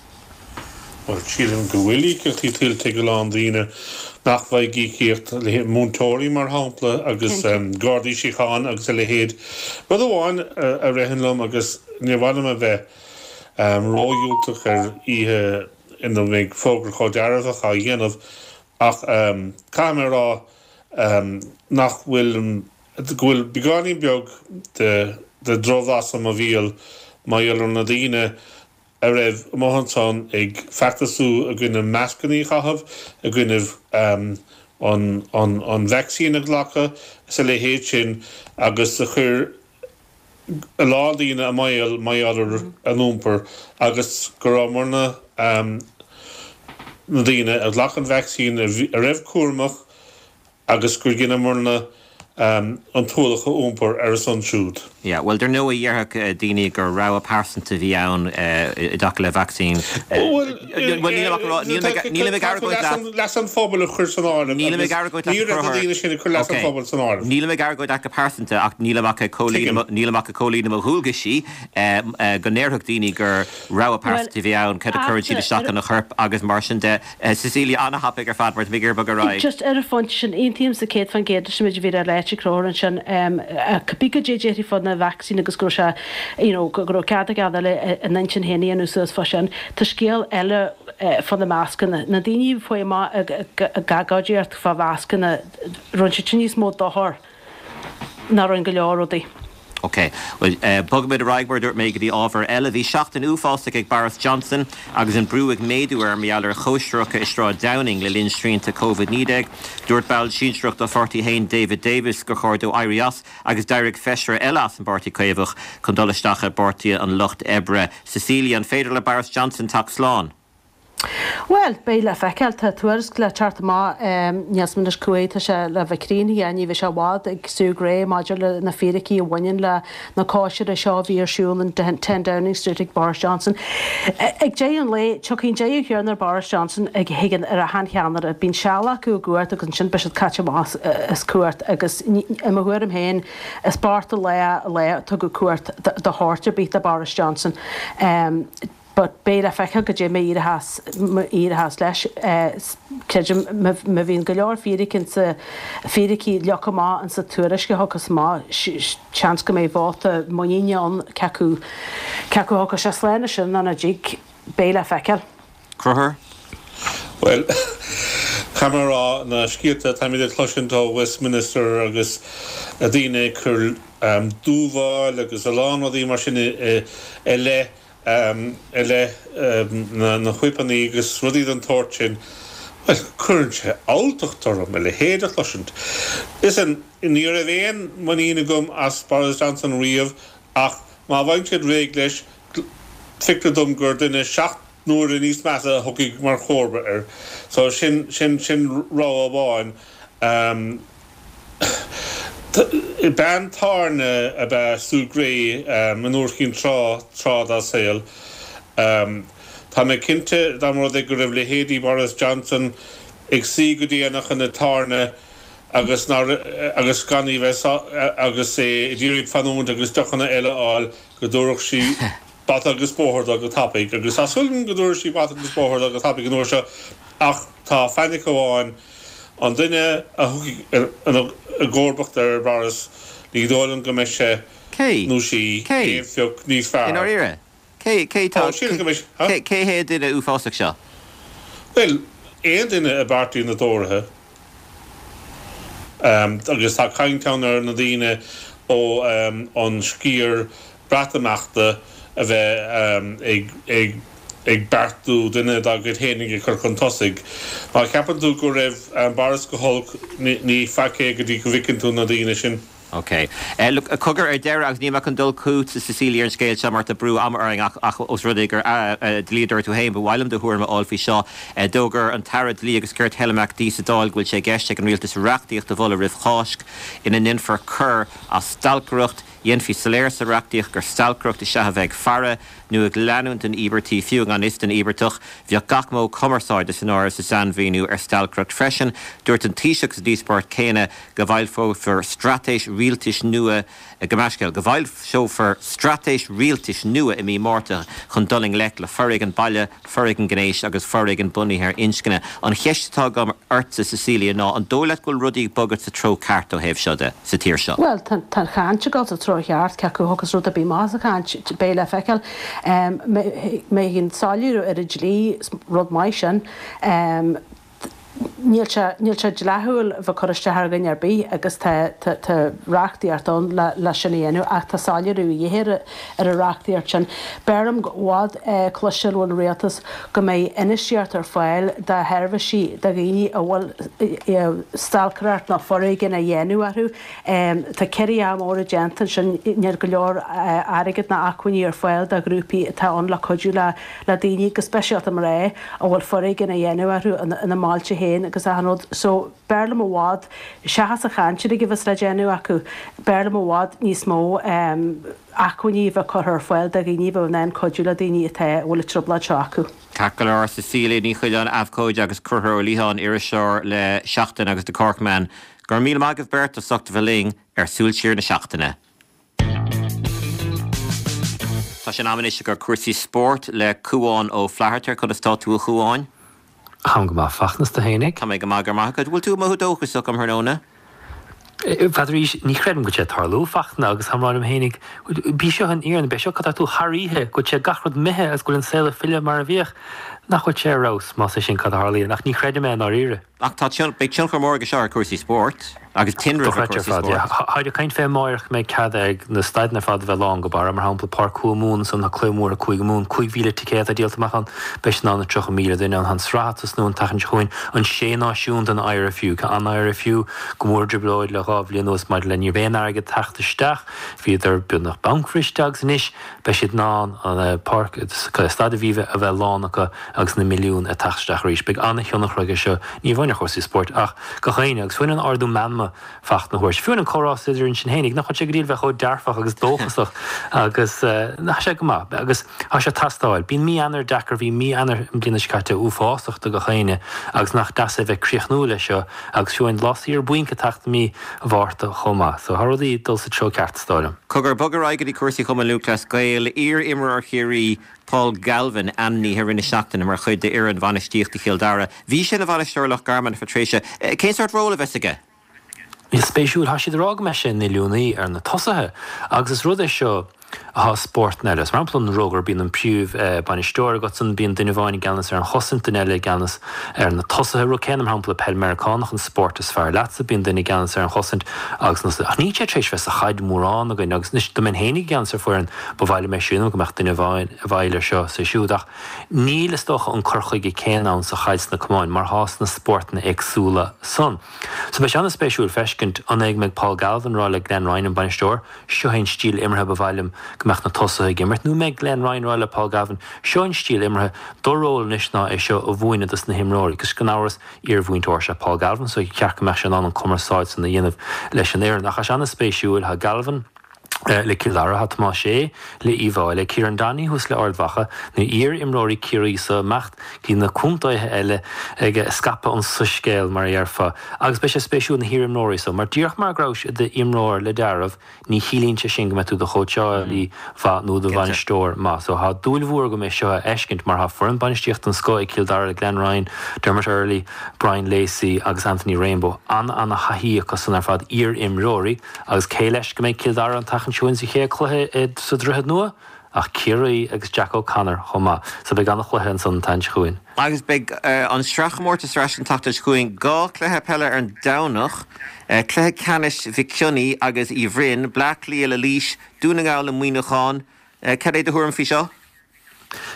Bhuel, sílim go bhfuil íocaíochtaí tuillte ag a lán daoine nach bhfaighidh íocaíocht, múinteoirí mar shampla agus Gardaí Síochána agus a leithéid. Rud amháin a ritheann liom agus níor mhaith liom a bheith ródhiúltach ar oíche ina mbeidh fógra chomh dearfach á dhéanamh ach caithfidh mé a rá nach bhfuil, go bhfuil beagáinín beag de dhrochbhlas i mo bhéal mar gheall ar na daoine a raibh amuigh ansan ag feachtasú i gcoinne mascannaí a chaitheamh, i gcoinne an vacsaín a ghlacadh is a leithéid sin agus a chuir. a lán daoine i mbaol mar gheall ar a n-iompar agus go rabhamarna, na daoine a ghlac an vacsaín, a raibh cúramach agus gur dheineamarna an t-ualach a iompar ar a son siúd. Yeah, bhuel, dar ndóigh, dhéarfadh daoine gur rogha pearsanta a bhí ann i dtaca le vacsaín. Bhuel, nílim ach ag rá, nílim ag argóint leat. Leas an phobail a chur san áireamh Nílim ag argóint leat ní raibh na daoine sin ag cur leas an phobail san áireamh. Nílim ag argóint leat go pearsanta ach nílim ach ag comhlíonadh, nílim ach ag comhlíonadh mo dhualgaisí go ndéarfadh daoine gur rogha pearsanta a bhí ann, cad a chuireann siad isteach ina chorp agus mar sin de. Cecilia, an-thapaidh ar fad mar tá mé ag iarraidh bogadh ar aghaidh. Just ar an phointe sin, aontaímse 100% leis an méid a bhí le ráit ag Conchúr ansin. Cibé goidé a déarfaí fá na vacsaíní agus go raibh sé, you know, go raibh cead ag gach duine a n-intinn féin a dhéanamh suas fá sin, tá scéal eile fá na mascanna. Na daoine a chuaigh amach ag agóidíocht fá mhascanna, rinne siad sin níos mó dochair ná rinne go leor rudaí. Ok. Bhuel, bogfaimid ar aghaidh, mar a dúirt mé, go dtí ábhar eile. Bhí seachtain uafásach ag Boris Johnson agus an brú ag méadú air mar gheall ar chóisireacha i Sráid Downing le linn srianta Covid-19. Dúirt ball sinsearach dá pháirtí féin, David Davis, gur chóir dó éirí as agus d'éirigh feisire eile as an bPáirtí Caomhach chun dul isteach i bPáirtí an Lucht Oibre. Cecilia, an féidir le Boris Johnson teacht slán? Bhuel, beidh le feiceáil. Tá tuairisc le teacht amach, níl 's agam anois cá huair atá sé le bheith críochnaithe, ní bheidh sé i bhfad, ag Sue Gray maidir le na fíricí a bhaineann le na cóisirí seo a bhí ar siúl in 10 Downing Street ag Boris Johnson. Ag deireadh an lae, tiocfaidh an deireadh céanna ar Boris Johnson a thigeann ar achan cheannaire. Bíonn seal acu i gcumhacht agus ansin beidh siad caite amach as cumhacht agus i mo thuairim féin, is bocht an lá an lá a tugadh cumhacht de shórt ar bith do Boris Johnson. But beidh le feiceáil goidé mar a éireochas leis. Creidim má bhíonn go leor fíric insa, fíricí leagtha amach insa tuairisc a thiocfas amach, seans go mbeidh vóta muiníne ann cé acu, cé acu a thiocfas sé slán as sin nó nach dtig, beidh le feiceáil. Conchúr? Bhuel, caithfidh mé a rá, na scéalta atáimid ag cloisint ó Westminster agus daoine ag cur dúmhál agus a lán rudaí mar sin i leith i leith na whipeanna agus rudaí den tsórt sin, bhuel, cuireann sé alltacht orm a leithéid a chloisint. Listen, ní raibh aon muinín agam as Boris Johnson riamh ach má bhfaigheann siad réidh leis, feictear dom gur duine 7 n-uaire níos measa a thiocfaidh mar chomharba air. So sin, sin, sin rogha amháin. Bean tábhairne ab ea Sue Gray in uair éicint tráth, tráth dá saol. Tá mé cinnte dá mba rud é go raibh leithéidí Boris Johnson ag suí go déanach ina tábhairne agus nár, agus gan í bheith agus é ag iarraidh fanúint agus deochanna eile a fháil go dtabharfadh sí bata agus bóthar dó go tapaidh. Agus tá súil agam go dtabharfaidh sí bata agus bóthar dó go tapaidh an uair seo ach tá fainic amháin, An duine a thiocfaidh i gcomharbacht ar Boris, ní dóigh liom go mbeidh sé Cé? nó sí Cé? aon phioc níos I fearr. ndáiríre? Cé, cé tá, Ó, sílim go mbeidh, huh? cé, cé hé an duine uafásach seo? Bhuel, aon duine i bpáirtí na dTóraithe. Agus tá caint ann ar na daoine ó an sciar Breatimeachta a bheith ag ag ag beartú duine dá gcuid fhéinig a chur chun tosaigh. Má cheapann tú go raibh Boris go holc, ní faic é go dtí go bhfeiceann tú na daoine sin. Ok. Look, cogar ar deireadh, agus níl mé chun dul chugatsa Cecilia ar an scéal seo mar tá brú ama orainn ach ach os rud é gur dlíodóir tú féin, ba mhaith liom do thuairim a fháil faoi seo. D'fhógair an tAire Dlí agus Cirt Helen McEntee sa Dáil go bhfuil sé i gceist ag an Rialtas reachtaíocht a mholadh roimh Cháisc ina ndéanfar coir as stalcaireacht. Dhéanfaí soiléir sa reachtaíocht gur stalcaireacht is ea a bheith ag faire nó ag leanúint den íobartach, fiú i ngan fhios don íobartach. Bheadh gach modh cumarsáide san áireamh sa sainmhíniú ar stalcaireacht freisin. Dúirt an Taoiseach sa díospóireacht chéanna go bhfoilseofar straitéis rialtais nua, gabh mo leithscéal, go bhfoilseofar straitéis rialtais nua i mí Márta chun dul i ngleic le foréigean baile, foréigean gnéis agus foréigean bunaithe ar inscne. An cheist atá agam ortsa, Cecilia, ná an dóigh leat go bhfuil rudaí ag bogadh sa treo ceart ó thaobh seo de, sa tír seo? Bhuel, tá an chaint ag dul sa treo cheart, cé acu a thiocfas rud ar bith amach as an chaint, beidh le feiceáil. Má thagann soiléiriú ar an dlí, is rud maith sin. Níl sé, níl sé dleathúil a bheith ag cur isteach ar dhuine ar bith agus tá, tá, tá reachtaíocht ann le, le sin a dhéanamh ach tá soiléiriú a dhíth ar, ar an reachtaíocht sin. B'fhearr liom i bhfad cloisteáil ón rialtas go mbeidh infheistíocht ar fáil do sheirbhísí do dhaoine a bhfuil stalcaireacht nó foréigean á dhéanamh orthu. Tá ciorruithe móra déanta ansin, níl go leor airgead ná acmhainní ar fáil do ghrúpaí atá ann le cuidiú le daoine, go speisialta mná, a bhfuil foréigean á dhéanamh orthu ina mbailte féin agus achan rud. So, b'fhearr liom i bhfad, seachas an chaint uilig a bheas le déanamh acu, b'fhearr liom i bhfad níos mó acmhainní a bheith curtha ar fáil do dhaoine a bheadh in ann cuidiú le daoine atá, a bhfuil an trioblóid seo acu. Ceart go leor, Cecilia Ní Choileáin, abhcóide agus Conchúr Ó Liatháin, iriseoir le Seachtain agus The Cork Man. Go raibh míle maith agaibh beirt as ucht a bheith linn ar Súil Siar na Seachtaine. Tá sé in am anois do chúrsaí spóirt le Cúán Ó Flatharta. Conas tá tú a Chúáin? Táim go maith, Fachtna, 's tú fhéinig? Tá mé go maith, go raibh maith agat. Bhfuil tú ag mothú dóchasach um thráthnóna? N'fheadar arís, ní chreidim go bhfuil sé ag tarlú, Fachtna, agus táim ag rá liom fhéinig, b'í seo an fhírinne, b'é seo cad tá tú thar oíche, go bhfuil sé gach rud imithe agus go bhfuil an saol ag filleadh mar a bhíodh. Nach bhfuil sé ar fheabhas, más é sin cad a tharlaíonn, ach ní chreidim é i ndáiríre. Ach tá beidh tionchar mór aige seo ar chúrsaí spóirt agus tinreamh ar Dochreidte ar chúrsaí fad, yeah. spóirt. Táid ag caint fé amáireach go mbeidh cead ag na staideanna ar fad a bheith lán go barra, mar shampla Páirc Chúige Mumhan ansan, tá cluiche mór ag Cúige Mumhan, 5,000 ticéad atá díolta amach ann, beidh siad in ann na 30,000 duine ann. Tá an tsraith ag tosnú an tseachtain seo chugainn, an Sé Náisiún den IRFU. Tá an IRFU go mór i dtrioblóid le dhá bhliain anuas maidir le ní raibh aon airgead ag teacht isteach, bhíodar beagnach bancbhriste agus anois beidh siad in ann an páirc, Staid Aviva a bheith lán acu agus na milliúin ag teacht isteach arís. Beidh an-thionchar aige seo, ní amháin ar chúrsaí spóirt ach gach éinne agus fiú an ardú meanma Fachtna a thabhairt. Fiú an comhrá idir sinn fhéinig, nach bhfuil sé go dtí a bheith chomh dearfach agus dóchasach agus tá sé go maith agus tá sé ag teastáil. Bíonn mí Eanáir deacair, bhí mí Eanáir an bliana seo caite uafásach do gach éinne agus nach deas é bheith críochnú leis seo agus fiú an lá saor bainc ag teacht i mí Mhárta chomh maith. So tá rudaí ag dul sa treo ceart is dóigh liom. Cogar, bog ar aghaidh go dtí cúrsaí Chumann Lúthchleas Gael. Iar-imreoir Chiarraí, Paul Galvin, ainmnithe i rith na seachtaine mar chuid d'fhoireann bhainistíochta Chill Dara. Bhí sé ina bhainisteoir ar Loch Garman ar feadh tréimhse. Cén sórt ról a bheas aige? Is spéisiúil, tá siad ag rá go mbeidh sé ina oiliúnaí ar na tosaithe agus is rud é seo atá i spórtanna eile. Mar shampla an rugar, bíonn an príomh bainisteoir agatsan, bíonn duine amháin i gceannas ar an chosaint, duine eile i gceannas ar na tosaithe. Rud céanna mar shampla peil Meiriceánach, an spórt is fearr leatsa, bíonn duine i gceannas ar an chosaint agus na Ach níl sé tar éis bheith sa chaid mórán againn agus anois dá mbeinn féinig i gceannas ar foireann, ba mhaith liom é sin go mbeadh duine amháin i bhfeighil ar seo is ar siúd. Ach níl, is dócha, an cur chuige céanna ann sa chaid sna camáin mar atá sna spórtanna éagsúla san. So beidh sé an-spéisiúil feiscint an é go mbeidh Paul Galvin ag rá le Glenn Ryan, an bainisteoir, seo é an stíl imeartha ba mhaith liom go mbeadh na tosaithe ag imirt, nó an mbeidh Glenn Ryan ag rá le Paul Galvin, seo an stíl imeartha, do ról anois ná é seo a mhúineadh dos na himreoirí. Agus gan amhras, iar-mhúinteoir is ea Paul Galvin so cheart go mbeadh sé in ann an cumarsáid san a dhéanamh leis an fhoireann. Ach tá sé an-spéisiúil, tá Galvin, le Cill Dara, tá Tomás Sé le Uíbh Fhailí, Kieran Donaghy thuas le Ard Mhacha, na iar-imreoirí Ciarraí so ag imeacht go dtí na contaetha eile ag scaipeadh an soiscéil mar a dhéarfá. Agus beidh sé spéisiúil na hiar-imreoirí so, mar díreach mar go rabhais i d'imreoir le dealramh, ní chiallaíonn sé sin go mbeidh tú i do chóitseálaí mhaith nó i do bhainisteoir maith. So tá dúil mhór agam é seo a fheiscint mar tá foireann bainistíochta den scoth ag Cill Dara le Glenn Ryan, Dermot Earley, Brian Lacey agus Anthony Rainbow. An-an-thaithí acu san ar fad, iar-imreoirí. Agus cé leis go mbeidh Cill Dara an tseachtain seo chugainn sa chéad chluiche sa Droichead Nua? Ach Ciarraí agus Jack O'Connor chomh maith. So beidh an-chluiche ansan an tseachtain seo chugainn. Agus beidh an sraithchomórtas ar ais an tseachtain seo chugainn. 2 chluiche peile ar an Domhnach, cluiche ceannais Mhic Cionnaith agus Uí Bhroin, Bleá Cliath le Laois, Dún na nGall le Muineachán. Cad é do thuairim faoi seo?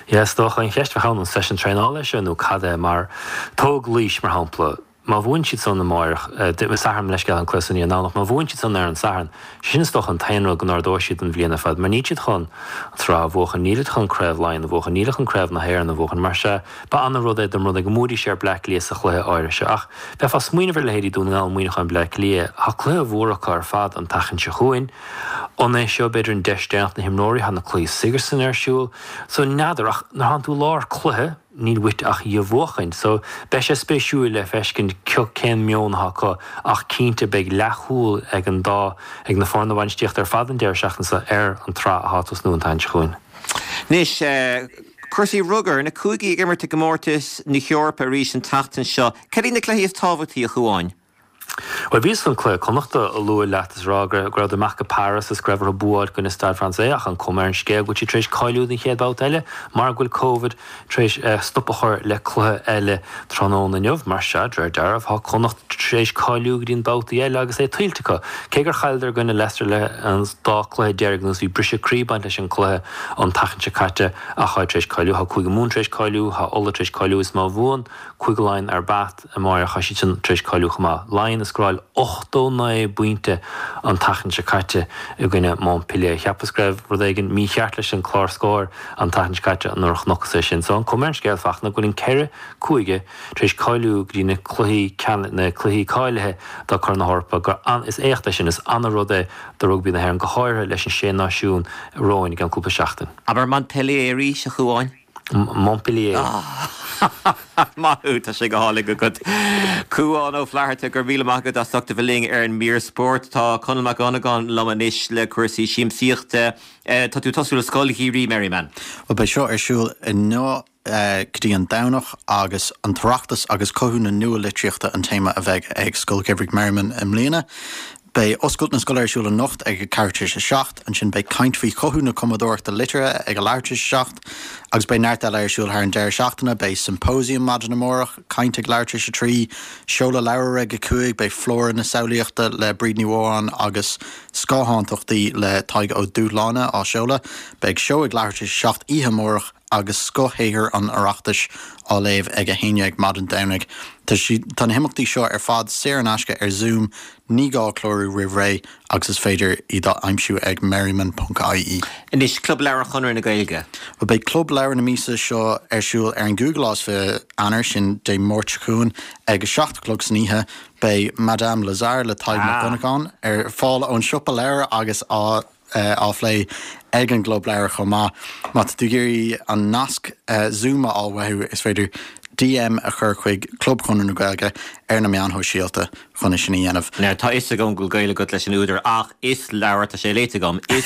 Yeah, is dócha an cheist a bheadh ann, an seisiún traenála é seo nó cad é? Mar tóg Laois mar shampla. Má bhuann siad san amáireach, Satharn, leithscéal, an cluiche san í an Domhnach, má bhuann siad san ar an Satharn, sé sin is dócha an t-aon rud go n-ardóidh siad an bhliain ar fad, mar níl siad chun an tsraith a bhuachan, nílid chun Craobh Laighean a bhuachan, nílid chun Craobh na hÉireann a bhuachan, mar sea, ba ana-rud é dá mba rud é go mbuafaidís ar Bleá Cliath sa chluiche áirithe seo. Ach bheifeá ag smaoineamh ar leithéidí Dún na nGall, Muineachán, Bleá Cliath, tá cluiche mhór acu ar fad an tseachtain seo chugainn. An é seo, b'fhéidir, an deis deireanach na himreoirí, tá na cluichí Sigerson ar siúl, so n'fheadar, ach nuair atánn tú i lár cluiche, Níl uait ach í a bhuachaint. So, beidh sé spéisiúil le feiscint cén meon atá acu ach cinnte beidh leathshúil ag an dá, ag na foirne bainistíochta ar fad an deireadh seachtaine seo ar an tsraith atá ag tosnú an tseachtain seo chugainn. Anois, cúrsaí rugair, na cúigí ag imirt i gcomórtas na hEorpa arís an tseachtain seo. Cad iad na cluichí is tábhachtaí, a Chuáin? Bhuel, bhíos chun cluiche Connachta a lua leat is a rá go rabhadar amach go Paris is go raibh orthu bua a fháil i gcoinne Stade Français ach an cuma ar an scéal go bhfuil siad tar éis cáiliú don chéad bhabhta eile mar go bhfuil Covid tar éis stop a chur le cluiche eile tráthnóna inniu. Mar sea, de réir dealraimh, tá Connacht tar éis cáiliú go dtí an babhtaí eile agus é tuillte acu. Cé gur chailleadar i gcoinne Leicester le an dá cluiche deiridh anuas, bhí briseadh croí ag baint leis an cluiche an tseachtain seo caite ach táid tar éis cáiliú. Tá Cúige Mumhan tar éis cáiliú, tá Ulaidh tar éis cáiliú is má bhuann Cúige Laighean ar Bath amáireach, tá siad sin tar éis cáiliú chomh maith. Laighean a scóráil 89 bpointe an tseachtain seo caite i gcoinne Montpellier. Cheapas go raibh rud éigin mícheart leis an clár scóir an tseachtain seo caite nuair a chonacthas é sin. So an cuma ar an scéal, Fachtna, go bhfuil an ceithre cúige tar éis cáiliú go dtí na cluichí na cluichí cáilithe do Corn na hEorpa gur an is éacht é sin, is ana-rud é do rugbaí na hÉireann, go háirithe leis an Sé Náisiún romhainn i gceann cúpla seachtain. Abair Montpellier arís, a Chuáin. Montpellier. Maith thú, tá sé go hálainn agat. Cuán Ó Flatharta, go raibh míle maith agat as ucht a bheith linn ar an mír spóirt. Tá Conall Mac Dhonnagáin liom anois le cúrsaí siamsaíochta. Tá tú ag tosú le Scoil Gheimhridh Merriman. Bhuel, beidh seo ar siúl inniu go dtí an Domhnach agus an tOireachtas agus cothú na nua-litríochta an téama a bheidh ag Scoil Gheimhridh Merriman i mbliana. Beidh oscailt na scoile ar siúl anocht ag a ceathrú tar éis a 7, ansin beidh caint faoi chothú na cumadóireachta liteartha ag a leathuair tar éis a 7, agus beidh neart eile ar siúl thar an deireadh seachtaine, beidh symposium maidin amárach, caint ag leathuair tar éis a 3, seoladh leabhair ag a 5, beidh Flóra na Samhlaíochta le Bríd Ní Mhóráin agus Scáthántachtaí le Tadhg Ó Dúshláine á seoladh, beidh seó ag leathuair tar éis a 7 oíche amárach, agus scothshaothair an Oireachtais á léamh ag 11 maidin Domhnaigh. Tá tá na himeachtaí seo ar fad saor in aisce ar Zoom, ní gá clárú roimh ré agus is féidir iad a aimsiú ag merriman.ie. Anois, Club Leabhar Chonradh na Gaeilge. Bhuel, beidh Club Leabhar na míosa seo ar siúl ar an gcúigiú lá is 20 Eanáir, sin Dé Máirt seo chugainn, ag a 7 a chlog san oíche. Beidh Madame Lazare le Tadhg Mac Dhonnagáin ar fáil ón siopa leabhar agus á á phlé ag an gClub Leabhar chomh maith. Má tá tú ag iarraidh an nasc Zoom a fháil uathu, is féidir DM a chur chuig Club Chonradh na Gaeilge ar na meáin shóisialta chun é sin a dhéanamh. Now, tá fhios agam go bhfuil gaol agat leis an údar ach is leabhar, tá sé léite agam, is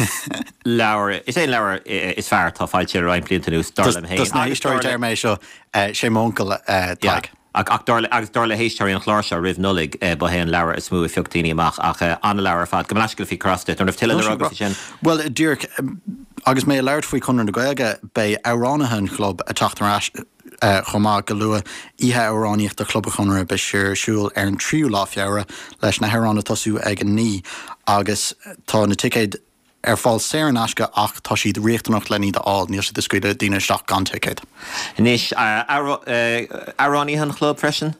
leabhar, is é an leabhar is fearr atá foilsithe le roinnt blianta anuas, dar liom féin. Dos na héisteoirí deir mé seo, sé m'uncail Tadhg. Ach dar le, agus dar le héisteoirí an chláir seo roimh Nollaig, ba é an leabhar is mó a phioc daoine amach. Ach an-leabhar ar fad. Gabh mo leithscéal a bhí ag cur as duit. An raibh tuilleadh le rá agat faoi sin? Bhuel, díreach, agus mé ag labhairt faoi Chonradh na Gaeilge, beidh amhránaithe an chlub ag teacht ar ais chomh maith go luath. Oíche Amhránaíochta Chlub an Chonartha, beidh sé ar siúl ar an tríú lá Feabhra, leis na hamhráin ag tosú ag a 9 agus tá na ticéid ar fáil saor in aisce ach tá siad riachtanach len iad a fháil, níl siad ag scaoileadh daoine isteach gan ticéad. Anois, amhránaithe an chlub freisin?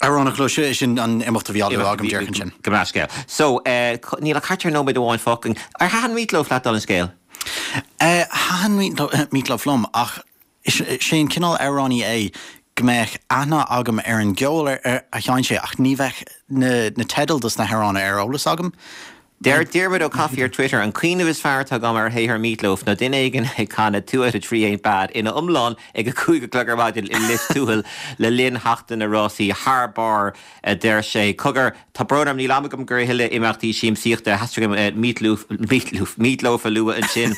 Amhránaithe an chlub, sin an imeacht a bhí á lua agam díreach ansin. Gabh mo leithscéal. So, níl ach thart ar nóiméad amháin fágtha. Ar thaitin Meat Loaf leat, dála an scéil? Thaitin Meat Loaf liom ach Is é an cineál amhránaí é go mbeadh aithne agam ar an gceol a sheinn sé ach ní bheadh na teidil dos na hamhráin ar eolas agam. Deir Diarmuid Ó Cofaigh ar Twitter, An cuimhneamh is fearr atá agam ar shaothar Meat Loaf ná duine éigin ag canadh Two Out of Three Ain't Bad ina iomlán ag a 5 a chlog ar maidin i Lios Tuathail le linn sheachtain na rásaí thar barr, a deir sé. Cogar, Tá brón orm, níl am agam do a thuilleadh imeachtaí siamsaíochta. Theastaigh uaim Meat Loaf, Meat Loaf, Meat Loaf a lua ansin.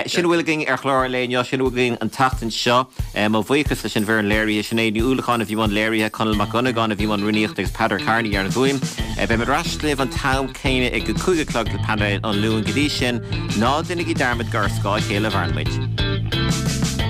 Sin a bhfuil againn ar chlár an lae inniu, sin a bhfuil againn an tseachtain seo. Mo bhuíochas leis an bhfoireann léirithe, Sinéad Ní Uallacháin a bhí i mbun léirithe, Conall Mac Dhonnagáin a bhí i mbun rúnaíochta agus Peadar Kearney ar an bhfuaim. Beimid ar ais libh an t-am céanna ag a 5 a chlog le painéal an Luain. Go dtí sin, ná déanaigí dearmad gur ar scáth a chéile a mhaireann muid.